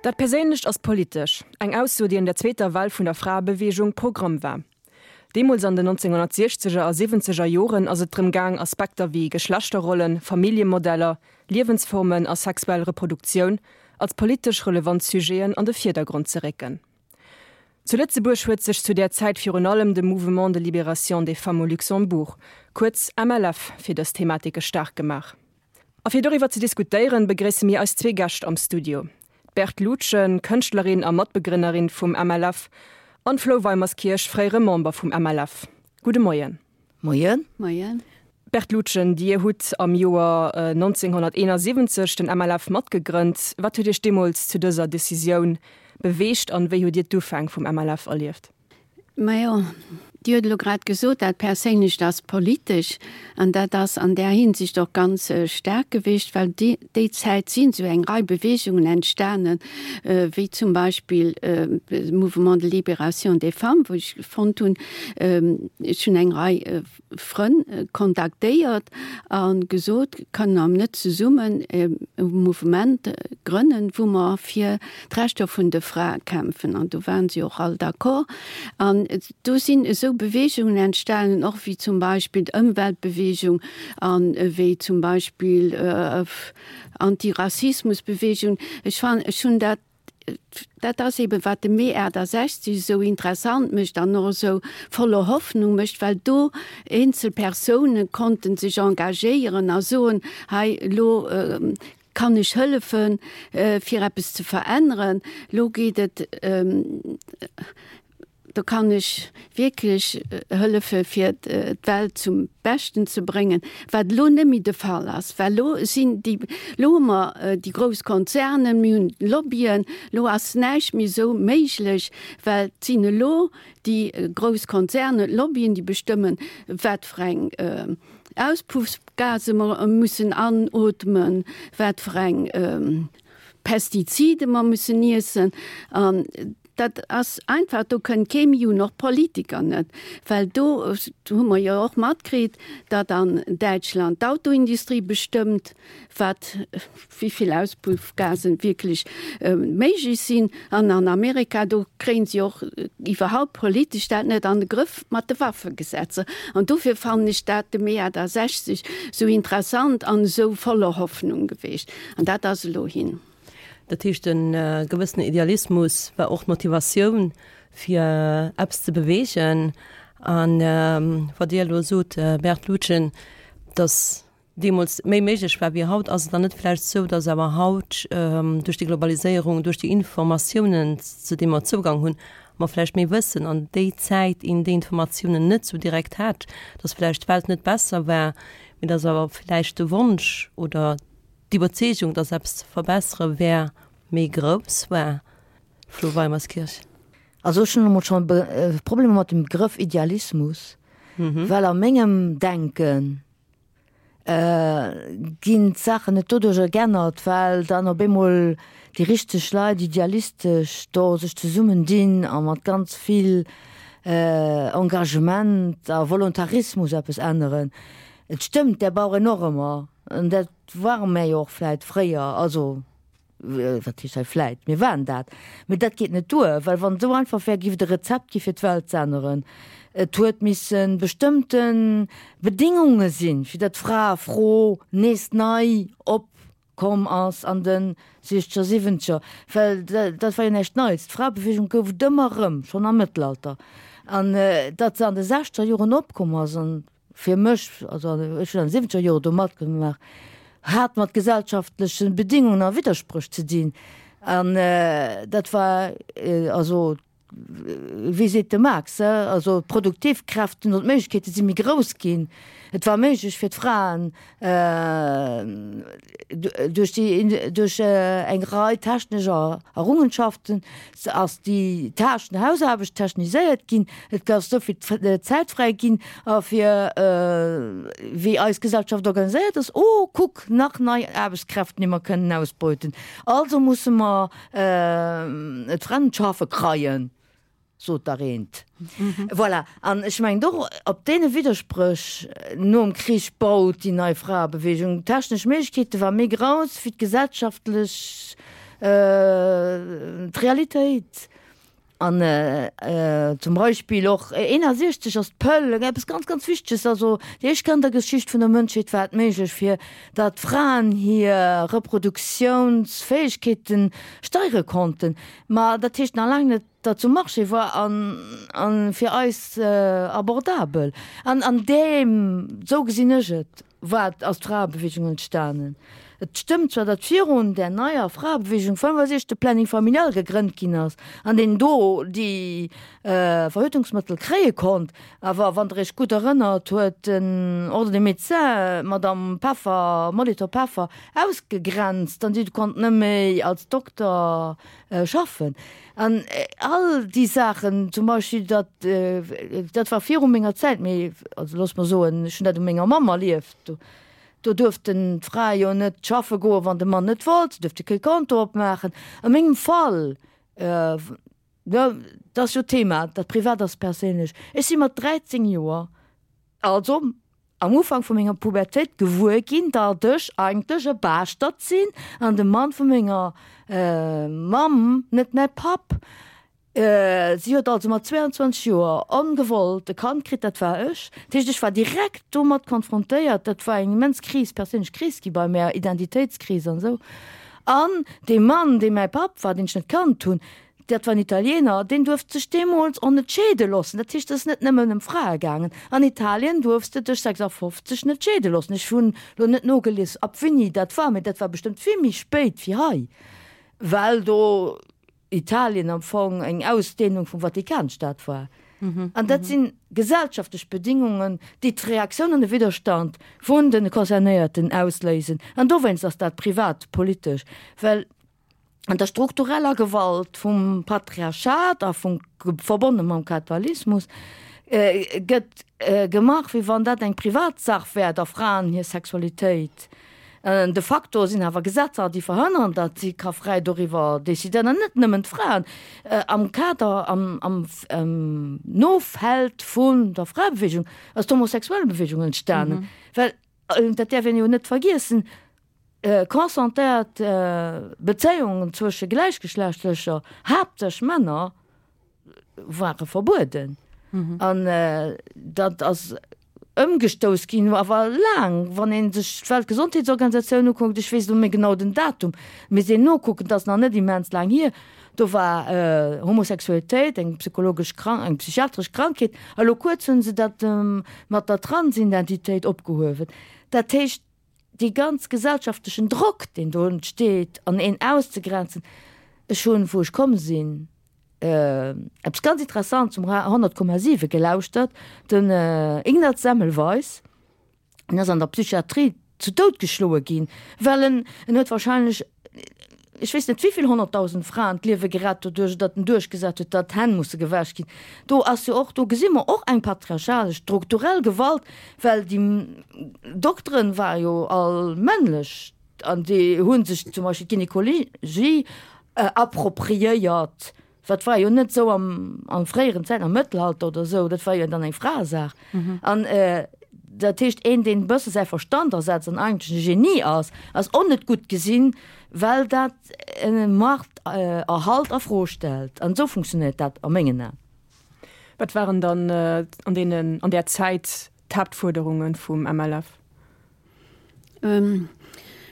Dat Perséinlecht ass politesch, eng Ausso, déi an der zweeter Well vun der Fraebeweegung Programm war. Deemools an den 1960er a siwwenzeger Joren ass et drëm gaang, Aspekter wéi Geschlechterrollen, Familljemodeller, Liewensformen a sexuell Reproduktioun als politesch relevant Sujeten an de Virdergrond ze récken. Zu Lëtzebuerg huet sech zu där Zäit virun allem de Mouvement de Libération des Femmes au Luxembourg, kuerz MLF, fir dës Thematike staark gemaach. A fir doriwwer ze diskutéieren, begréisse mir eis zwee Gäscht am Studio, d'Berthe Lutgen, Kënschtlerin a Matbegrënnerin vum MLF, an d'Flou Weimerskirch, fréiere Member vum MLF. Gudde Moien. Moien. Moien. Berthe Lutgen, Dir hutt am Joer 1971 den MLF matgegrënnt. Wat huet Iech deemools zu dëser Decisioun beweegt an wéi hutt Dir d'Ufäng vum MLF erlieft? Majo, Dir hutt elo grad gesot, dat Perséinlecht ass politesch. An dat ass an där Hinsicht och ganz staark gewiescht, well déi Zäit sinn esou eng Rei Beweegungen entstanen, wéi zum Beispill de Mouvement de libération des femmes, wou ech fonnt hunn, ech hunn eng Rei Frënn kontaktéiert a gesot, Kënne mer net zesummen e Mouvement grënnen, wou mer fir d'Rechter vun de Frae kämpfen? An do waren si och all d'accord. An do sinn esou Beweegungen entstanen, och wéi zum Beispill d'Ëmweltbeweegung an wéi zum Beispill Antirassismusbeweegung. Ech fannen, ech hunn dat, dat ass eben, wat de Mee 68 esou interessant mécht an och esou voller Hoffnung mécht, well do eenzel Persoune konnten sech engagéieren a soen, hei elo kann ech hëllefen, fir eppes ze veränneren, elo geet et, do kann ech wierklech hëllefe fir d'Welt zum Beschten ze bréngen, wat elo net méi de Fall ass, well elo sinn déi, elo hu mer déi grouss Konzernen, mir hunn Lobbyen, elo ass näischt méi esou méiglech, well et sinn elo déi grouss Konzernen, d'Lobbyen, déi bestëmmen, wat fir eng Auspuffgase mer mussen anootmen, wat fir eng Pestizide mer mussen iessen. An dat ass einfach, do kënnt kee méi un, och d'Politiker net, well do hu mer jo och matkritt, datt an Däitschland d'Autoindustrie bestëmmt, wat, wéi vill Auspuffgasen wierklech méiglech sinn. An an Amerika, do kréien si och iwwerhaupt politesch dat net an de Grëff mat de Waffegesetzer. An dofir fannen ech dat de Mee 68 esou interessant an esou voller Hoffnung geweecht. An dat ass elo hin. Dat heescht, e gewëssenen Idealismus war och d'Motivatioun, fir eppes ze beweegen. A wat Dir elo sot, Berthe Lutgen, datt deemools méi méiglech war wéi haut, ass et dann net vläicht esou, datt awer haut duerch déi Globaliséierung, duerch déi Informatiounen, zu deene mer Zougang hunn, mer vläicht méi wëssen an déi Zäit een déi Informatiounen net esou direkt hat, datt vläicht d'Welt net besser war, mee datt awer vläicht de Wonsch oder d'Iwwerzeegung, datt eppes ze verbessere wär, méi grouss war? Flo Weimerskirch. Also ech hunn emol scho Problemer mat dem Begrëff Idealismus, well a mengem Denken ginn d'Saachen net doduercher geännert, well dann op eemol déi richteg Leit idealistesch do sech zesummen dinn a mat ganz vill Engagement a Volontarismus eppes änneren. Et stëmmt, där brauch een och ëmmer, an dat ware mär jo och vläit fréier, also Wat heescht hei vläit? Mir waren dat. Mee dat geet net duer, well wann et esou einfach wär, giff et e Rezept gi fir d'Welt z'änneren. Et huet misse bestëmmte Bedingunge sinn, fir datt d'Fraefro nees nei opkomm ass an de siechzeger, siwwenzeger. Well dat war jo näischt Neits. D'Fraebeweegung gouf et ëmmer erëm, schonn am Mëttelalter. An datt se an de sechzeger Joren opkomm ass, an fir mech, also ech hunn an de siwwenzeger Jore do matgemaach, hat mat gesellschaftleche Bedingungen a Widderspréch ze dinn. An dat war also, wéi seet de Marx, also d'Produktivkräften oder d'Méiglechkeete si méi grouss ginn. Et war méiglech fir d'Fraen, Duerch déi, duerch eng Rei technesch Errungenschaften ass déi Tâchen, Hausaarbecht techniséiert ginn. Et ass esou vill Zäit fräi ginn a fir wéi eis Gesellschaft organiséiert ass, oh kuck, nach nei Aarbechtskräften, déi mer kënnen ausbeuten, also musse mer d'Fremd schaffe kreien. Sot dach eent. Voilà. An ech mengen och, op deene Widderspréch nom Krich baut déi nei Fraebewegung. D'technesch Méiglechkeete war méi grouss wéi d'gesellschaftlech. D'Realitéit. An zum Beispill och 61 ass d'Pëll, eppes ganz, ganz Wichteges. Also déi éischt Kéier an der Geschicht vun der Mënschheet war et méiglech, fir datt Fraen hir Reproduktiounsfäegkeete steiere konnten. Ma dat heescht nach laang net, datt se um Marché war an fir eis abordabel. An an deem, esou gesinn ech et, war ass d'Fraebewegung entstanen. Et stëmmt zwar, datt virun där neier Fraebewegung 65 de Planning familial gegrënnt ginn ass an een do déi Verhütungsmëttel kréie konnt, awer wann Der Iech gutt erënnert, huet den Ordre des Médecins d'Madame Peffer, Molitor-Peffer ausgegrenzt an si konnt net méi als Dokter schaffen. An all déi Saachen, zum Beispill datt, dat war viru menger Zäit, mee also looss mer soen, ech hunn dat u menger Mamm erlieft, do, do duerften d'Frae jo net schaffe goen, wann de Mann net wollt, se duerfte kee Konto opmaachen. A mengem Fall, jo, dat ass jo d'Thema, dat Privat ass perséinlech, ech si mat 13 Joer, also am Ufank vu menger Pubertéit gewuer ginn, datt ech eigentlech e Baaschtert sinn an de Mann vu menger Mamm net mäi Papp. Si huet also mat 22 Joer ongewollt e Kand kritt, dat war ech. Dat heescht, ech war direkt domat konfrontéiert. Dat war eng immens Kris, perséinlech Kris gi bei mär, Identitéitskris an esou. An dee Mann, dee mäi Papp war, deen ech net kannt hunn, Dat war en Italiener, deen duerft sech deemools och net scheede loossen. Dat heescht, et ass net nëmmen ëm Frae gaangen. An Italien duerfs de dech 56 net scheede loossen. Ech hunn elo net nogelies, ab wéini dat war, mee dat war bestëmmt vill méi spéit wéi hei, well do Italien am Fong eng Ausdehnung vum Vatikanstaat war. An dat si gesellschaftlech Bedingungen, déi d'Reaktioun an de Widderstand vun de Concernéierten ausléisen. An dowéinst ass dat privatpolitesch, well an der struktureller Gewalt vum Patriarchat a vum verbonne mam Kapitalismus gëtt gemaach, wéi wann dat eng Privatsach wär, der Fraen hir Sexualitéit. De facto sinn awer Gesetzer, déi verhënnern, datt si ka fräi doriwwer decidéieren, an net nëmmen d'Fraen. Am Kader, am Nofeld vun der Fraebewegung ass d'Homosexuellebewegung entstanen, well, dat däerf een jo net vergiessen, Consentéiert Bezéiungen zwësche Gläichgeschlechtlecher, haaptsächlech Männer, ware verbueden. An dat ass ëmgestouss ginn, awer laang. Wann ee sech d'Weltgesondheetsorganisatioun ukuckt, ech weess elo net méi genau den Datum, misst een nokucken, dat ass nach net immens laang hier, do war Homosexualitéit eng psychologesch Krank-, eng psychiatresch Krankheet. A lo kuerz hu se dat mat der Transidentitéit opgehuewen. Dat heescht, dee ganz gesellschaftlechen Drock, deen do entsteet, an een auszegrenzen. Ech hunn, wou ech komm sinn, eppes ganz Interessantes um 100,7 gelauschtert, den Ignaz Semmelweis, deen ass an der Psychiatrie zu Doud geschloe ginn, well en, en huet wahrscheinlech, ech weess net wéivill 100.000 Fraen d'Liewe gerett doduerch, datt en duerchgesat huet, datt d'Hänn musse gewäsch ginn. Do ass jo och, do gesi mer och eng patriarchalesch, strukturell Gewalt, well déi Dokteren ware jo all männlech an déi hu sech zum Beispill d'Gynekologie appropriéiert. Dat war jo net esou am, an fréieren Zäiten, am Mëttelalter oder esou, dat war jo dann eng Fraesaach. An dat heescht, een, deen e bësse säi Verstand asetzt an eigentlech e Genie ass, ass och net gutt gesinn, well dat e Machterhalt a Fro stellt. An esou funktionéiert dat a mengen Aen. Wat waren dann an deenen, an där Zäit d'Haaptfuerderunge vum MLF?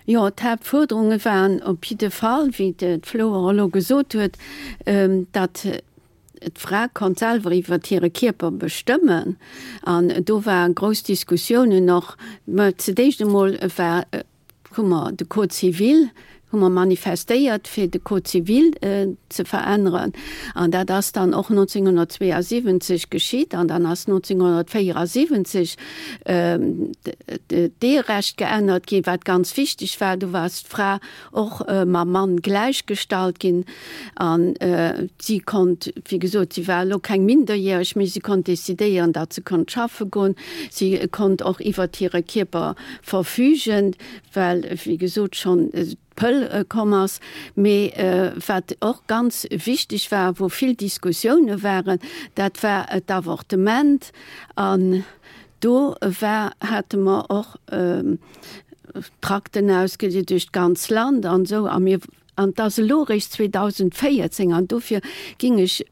Jo, d'Haaptfuerderunge waren op jidde Fall, wéi d'Flo och elo gesot huet, datt d'Fra konnt selwer iwwer hire Kierper bestëmmen. An do war grouss Diskussiounen och. Mä zu d'éischt emol war, hu mer de Code civil, hu mer manifestéiert, fir de Code civil ze veränneren. An dat ass dann och 1972 geschitt. An dann ass 1974 d'Eherecht geännert ginn, wat ganz wichteg war. Do war d'Fra och mam Mann gläichgestallt ginn. An si konnt, wéi gesot, si war elo keng Minderjäreg méi, si konnt decidéieren, datt se konnt schaffe goen. Si konnt och iwwert hire Kierper verfügen, well, wéi gesot, schonn d'Pëll komm ass. Mee wat och ganz wichteg war, wou vill Diskussioune waren, dat war d'Avortement. An do war, hate mer och Trakten ausgedeelt duerch d'ganz Land an esou. A mir. An et ass elo eréischt 2014, an dofir ging ech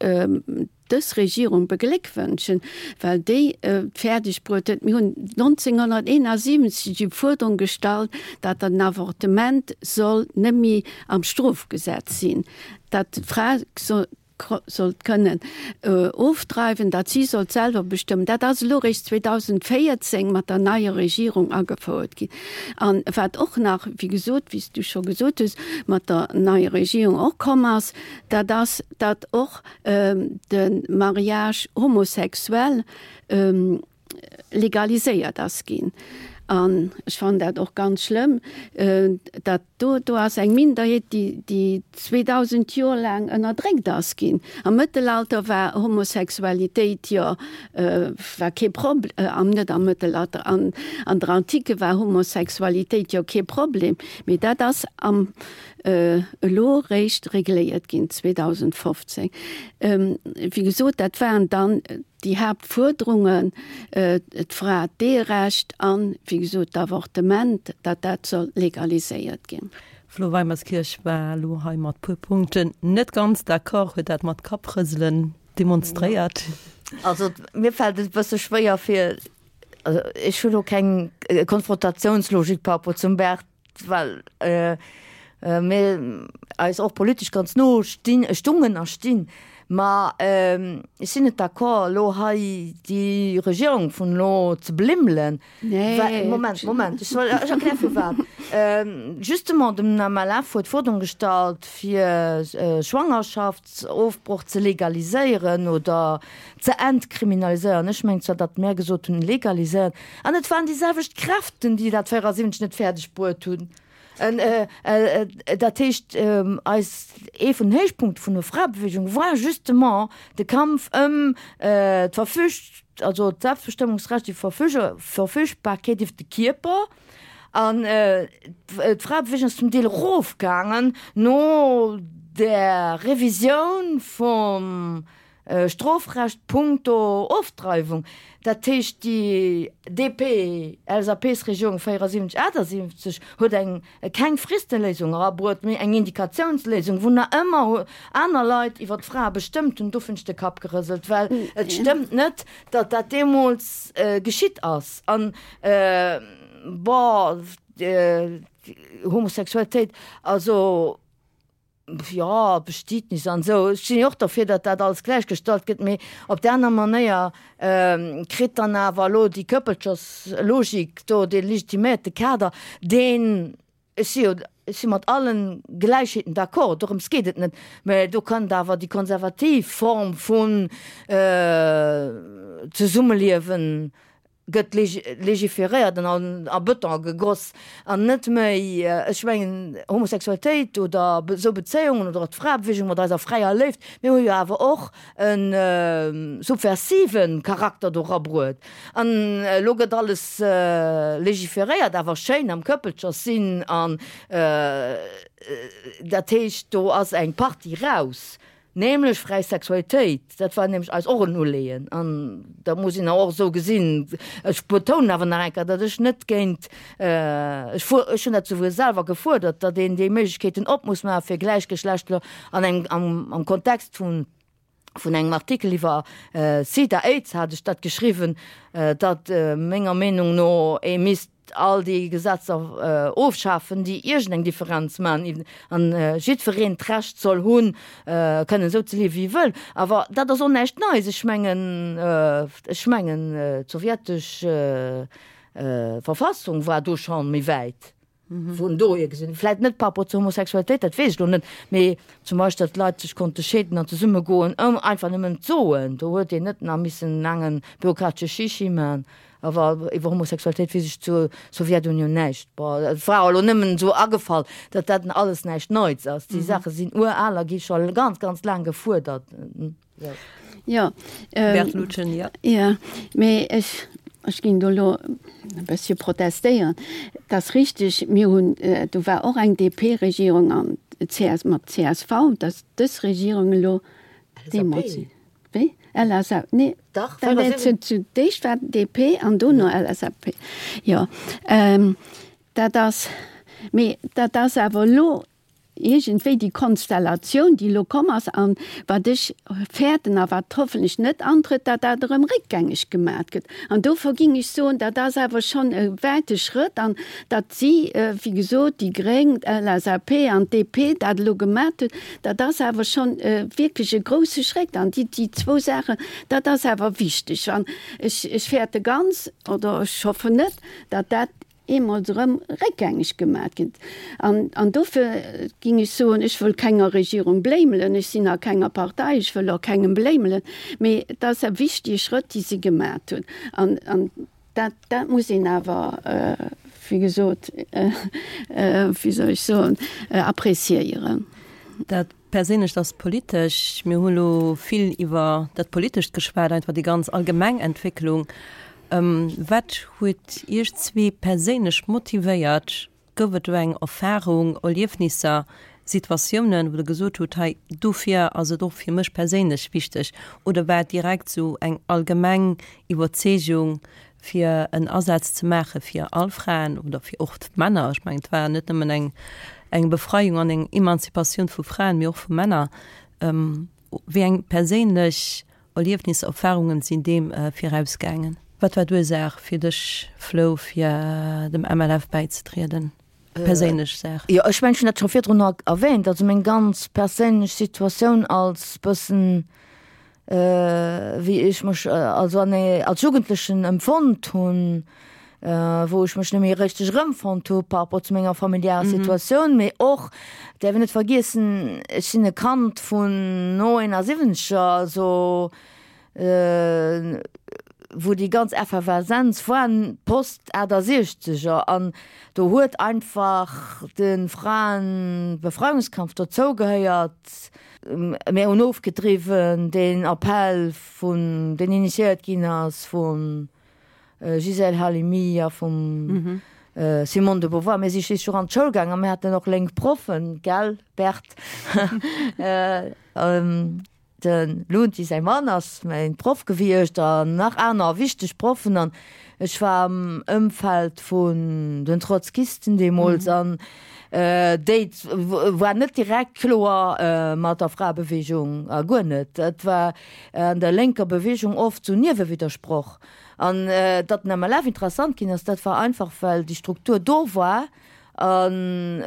dës Regierung begléckwënschen, well déi et fäerdeg bruet huet, mir hunn 1971 déi Fuerderung gestallt, datt den Avortement soll net méi am Strofgesetz sinn, datt d'Fra sollt kënnen ofdreiwen, datt si sollt selwer bestëmmen. Dat ass elo eréischt 2014 mat der neier Regierung agefouert ginn. An wat och nach, wéi gesot, wéi s du scho gesot hues, mat der neier Regierung och komm ass, dat ass, datt och de Mariage homosexuel legaliséiert ass ginn. An ech fannen dat och ganz schlëmm, datt do, do ass eng Minderheet, déi, déi 2000 Joer laang ënnerdréckt ass ginn. Am Mëttelalter war Homosexualitéit jo, war kee Prob-, am, net am Mëttelalter, an, an der Antike war Homosexualitéit jo kee Problem, mee dat ass am, elo réischt regléiert ginn 2015. Wéi gesot, dat waren dann déi Haaptfuerderungen, d'Fra, d'Eherecht an, wéi gesot, d'Avortement, datt dat soll legaliséiert ginn. Flo Weimerskirch war elo hei mat puer Punkten net ganz d'accord, huet dat mat Kapprëselen demonstréiert. Also mir fält et e bësse schwéier fir, also ech hunn elo keng Konfrontatiounslogik par rapport zum Bert, well mir eis och politesch ganz no stinn, stungen a stinn. Ma ech sinn net d'accord, elo hei déi Regierung vun elo ze blimmelen. Nee. Moment, Moment, ech soll, ech erkläre firwat. Justement, den MLF huet d'Fuerderung gestallt, fir Schwangerschaftsofbroch ze legaliséieren oder ze entkriminaliséieren. Ech mengen zwar, datt mär gesot hunn, legaliséieren. An et waren déi selwecht Kräften, déi dat 74 net fäerdeg bruet hunn. Dat heescht, eis, ee vun den Héichpunkte vun der Fraebewegung war justement de Kampf ëm d'Verfüg, also d'Selbstbestëmmungsrecht, déi Verfügbarkeet iwwer de Kierper. An d'Fraebewegung ass zum Deel erofgaangen no der Revisioun vum Strofrecht punkto Ofdreiwung, dat heescht déi DP-LSAP-Regierung 74, 78 huet eng keng Fristeléisung erabruet, mee eng Indikatiounsléisung, wou nach ëmmer aner Leit iwwer d'Frae bestëmmt hunn. Do hunn ech de Kapp gerëselt, well et stëmmt net, datt dat deemools geschitt ass. An, bon, Homosexualitéit, also. Jo, Bestietnis an esou. Ech sinn jo och derfir, datt dat alles gläichgestallt gëtt, mee op där aner Manéier kritt dann awer elo déi Këppelcherslogik do dee legitiméierte Kader, deen, ech si jo, ech si mat allen Gläichheeten d'accord, dorëms geet et net, mä do kënnt awer déi konservativ Form vun Zesummeliewen gëtt legiferéiert an a Bëton gegoss an net méi, ech mengen, Homosexualitéit oder esou Bezéiungen oder och d'Fraebewegung mat eiser fräier Léift, mir hu jo awer och e subversive Charakter do rabruet. An elo gëtt alles legiferéiert, awer schéin am Këppelcherssinn an dat heescht, do ass eng Partie raus. Nämlech fräi Sexualitéit, dat war nämlech eis och en Uleeën an dat muss een och esou gesinn. Ech betounen awer nach eng Kéier, datt ech net géint, ech fuer, ech hunn dat souguer selwer gefuerdert, datt een déi Méiglechkeeten op muss maache fir Gläichgeschlechtler an engem, am, am Kontext vun, vun engem Artikel iwwer Sida, Aids hat ech dat geschriwwen, datt menger Meenung no ee misst all déi Gesetzer ofschafen, déi iergendeng Differenz maachen an jiddwereen d'Recht soll hunn, kënnen esou ze liewen, wéi e wëll. Awer dat ass och näischt Neies. Ech mengen, ech mengen, d'sowjetesch Verfassung war do scho méi wäit. Vun dohier gesinn, vläit net par rapport zur Homosexualitéit, dat weess ech elo net, mee zum Beispill, datt d'Leit sech konnte scheeden an zesummegoen, ëm einfach nëmmen d'soen, do huet een net nach missen en laange bürokratesche Chichi man. Awer iwwer Homosexualitéit weess ech zur Sowjetunioun näischt. Bon, et war elo nëmmen esou agefall, datt dat alles näischt Neits ass. Déi Saache sinn ural a gi scho ganz, ganz laang gefuerdert. Jo, Bert Lutgen, jo. Jo, mee ech, ech ginn do elo e bëssche protestéieren. Et ass richteg, mir hunn, do war och eng DP-Regierung an CS, mat csv, datt dës Regierung elo deemools. Wéi? LSAP? Nee. Dach, Dat war zu, zu d'éischt war DP an dono LSAP. Jo, ähm, dat ass, mee dat ass awer elo. Iergendwéi déi Konstellatioun, déi elo komm ass, an wat ech fäerten a wat hoffentlech net antrëtt, datt dat erëm réckgängeg gemat gëtt. An dofir ging ech soen, dat ass awer schonn e wäite Schrëtt, an datt si, wéi gesot, déi Gréng, d'LSAP an d'DP dat elo gemat hunn, dat ass awer schonn wierklech e grouse Schrétt. An déi, déi zwou Saachen, dat ass awer wichteg. An ech, ech fäerte ganz, oder ech hoffen net, datt dat eemol erëm réckgängeg gemat ginn. An, an dofir ging ech soen, ech wëll kenger Regierung bléimelen, ech sinn a kenger Partei, ech wëll och kengem bléimelen, mee et ass e wichtige Schrëtt, dee si gemat hunn. An, an dat, dat muss een awer, wéi gesot, wéi soll ech soen, appréciéieren. Dat Perséinlecht ass politesch. Mir hu lo vill iwwer dat Politescht geschwat, einfach déi ganz allgemeng Entwécklung. Wat huet Iech zwee perséinlech motivéiert? Gouf et do eng Erfarung, Erliefnisser, Situatiounen, wou Der gesot hutt, hei dofir ass et och fir mech perséinlech wichteg? Oder war et direkt esou eng allgemeng Iwwerzeegung, fir en Asaz ze maache fir all Fraen oder fir och d'Männer. Ech mengen, et war net nëmmen eng, eng Befreiung an eng Emanzipatioun vu Fraen, mee och vu Männer. Wéi eng perséinlech Erliefnisser, Erfahrungen sinn deem virausgaangen? Wat war d'Ursaach fir dech, Flo, fir dem MLF bäizetrieden? Perséinlech Saach. Jo, ech mengen, ech hunn dat scho virdrun erwähnt. Also meng ganz perséinlech Situatioun als bëssen, wéi ech mech also an als Jugendlechen empfonnt hunn, wou ech mech net méi richteg erëmfonnt hu par rapport zu menger familiärer Situatioun, mee och, däerf een net vergiessen, ech sinn e Kand vun no 71er, also wou déi ganz Efferveszenz war, post 68er, an do huet einfach de Fraenbefreiungskampf dozou gehéiert. Mir hunn ofgedriwwen deen Appell vun, deen initiéiert ginn ass vum Gisèle Halimi a vum Simone de Beauvoir. Mir si schliisslech och an d'Schoul gaangen a mir haten och lénk Proffen, gell Bert? De Lunti säi Mann ass mäin Proff gewiescht an nach aner wichteg Proffen an ech war am Ëmfeld vun den Trotzkisten deemools an déi war net direkt kloer mat der Fraebewegung a guer net. Dat war an der lénker Bewegung oft sou Niewewiddersproch. An datt den MLF interessant ginn ass, dat war einfach well déi Struktur do war an,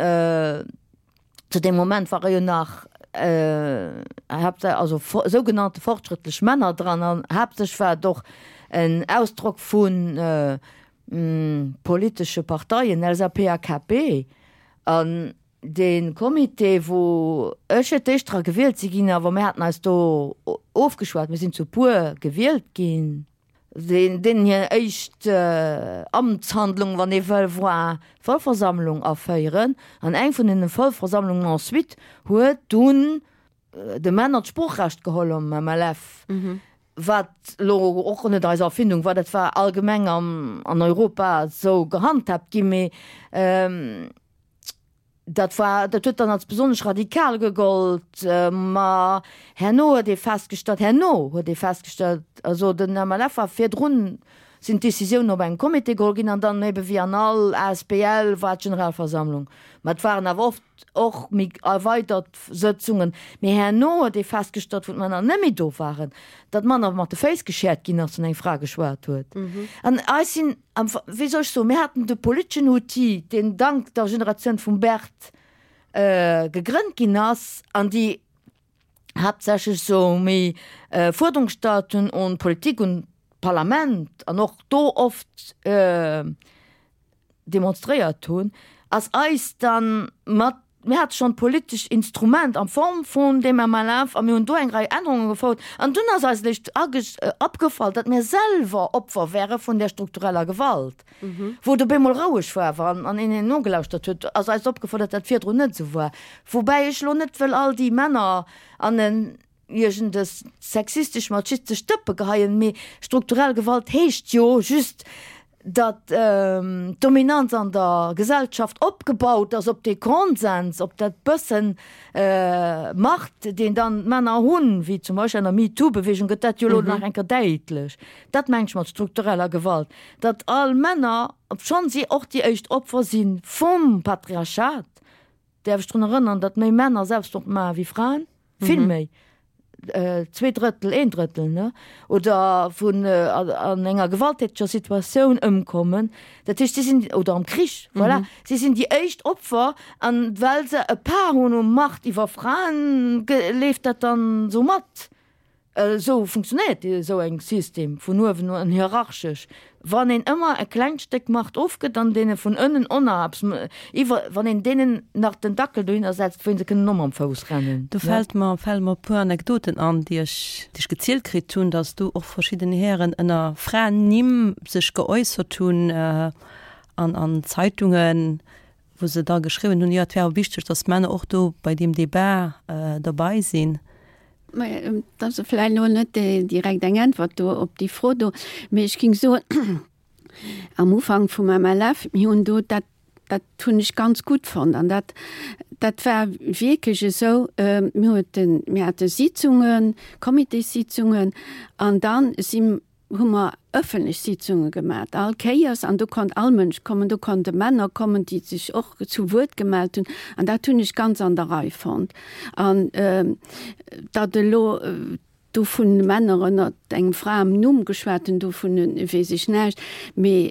Zu deem Moment ware jo nach also sougenannte fortschrëttlech Männer dran an haaptsächlech war et och en Ausdrock vu politesche Parteien, LSAP a KP. An dee Comité, wou ech fir d'éischt dra gewielt si ginn, awer mir haten eis do ofgeschwat, mir sinn zu puer gewielt ginn, Deen deenen hir éischt Amtshandlung, wann ee wëll, war d'Vollversammlung aféieren. An eng vun deene Vollversammlungen ensuite huet dunn de Männer d'Sproochrecht geholl am MLF, wat elo och net eis Erfindung war, dat war allgemeng an Europa esou gehandhaabt ginn. Mee Dat war, dat huet dann als besonnesch radikal gegollt. Ma herno huet ee festgestallt, herno huet ee festgestallt, also den MLF war virdrun, sinn d'Décisiounen op engem Comité geholl ginn an dann ebe wéi an all asbl war d'Generalversammlung. Ma et waren awer oft och méi erweidert Sëtzungen. Mee herno huet ee festgestallt, wou d'Männer net méi do waren, datt manner mat de Féiss geschäert ginn ass, wann eng Fra geschwat huet. An eis sinn Am, wéi soll ech soen, mir haten de politeschen Outil, deen dank der Generatioun vum Bert gegrënnt ginn ass an déi haaptsächlech esou méi Fuerderung gestallt hunn un d'Politik, un d'Parlament an och do oft demonstréiert hunn, ass eis dann mat Mir hate schonn d'politescht Instrument a Form vun deem MLF a mir hunn do eng Rei Ännerunge gefouert. An dunn ass eis eréischt opgefall, datt mir selwer Opfer wäre vun där struktureller Gewalt. Wou et op eemol roueg war awer an een een nogelauschtert huet, ass eis opgefall, datt dat virdrun net esou war. Woubäi ech elo net wëll all déi Männer an en iergendes sexistesch machistesch Dëppe geheien, mee strukturell Gewalt heescht jo just, datt d'Dominanz an der Gesellschaft opgebaut ass op dee Konsens, op dat bëssen Macht, deen dann d'Männer hunn, wéi zum Beispill an der MeToo-Beweegung gëtt dat jo elo nach eng Kéier däitlech. Dat mengen ech mat struktureller Gewalt, datt all Männer, obschonn si och déi éischt Opfer si vum Patriarchat. Däerf ech drun erënnern, datt méi Männer Selbstmord maache wéi Fraen, vill méi, 2 Drëttel, een Drëttel, ne, oder vun an enger gewalttäteger Situatioun ëmkommen. Dat heescht, si sinn, oder am Krich, voilà, si sinn déi éischt Opfer. An well se e Part hunn u Macht iwwer Fraen, leeft dat dann esou mat. Esou funktionéiert esou eng System vun uewen un hierarchesch. Wann een ëmmer e klengt Stéck Macht ofgëtt an deene vun ënnen oner eppes iwwer, wann een deenen nach den Dackel dohinner setzt, wou se kënnen och mam Fouss rennen. Do fält mer, fale mer e puer Anekdoten an, déi ech, déi ech gezielt kritt hunn, datt do och verschidden Hären ënner Fraennimm sech geäussert hunn an an Zeitungen, wou se da geschriwwen hunn, jo et wär awer wichteg, datt d'Männer och do bei deem Débat derbei sinn. Mä et ass vläicht elo net direkt eng Äntwert do op déi Fro do, mee ech géing soen, am Ufank vum MLF, mir hunn do dat, dat hunn ech ganz gutt fonnt an dat, dat war wierklech esou, mir hueten, mir hate Sitzungen, Comitéssitzungen an dann si hu mer ëffentlech Sitzunge gemat, all Kéiers, an do konnt all Mënsch kommen, do konnte Männer kommen, déi sech och zu Wuert gemellt hunn, an dat hunn ech ganz an der Rei fonnt. An datt elo do vu Männer ënnert engem Fraennumm geschwat hunn, dovun weess ech näischt, mee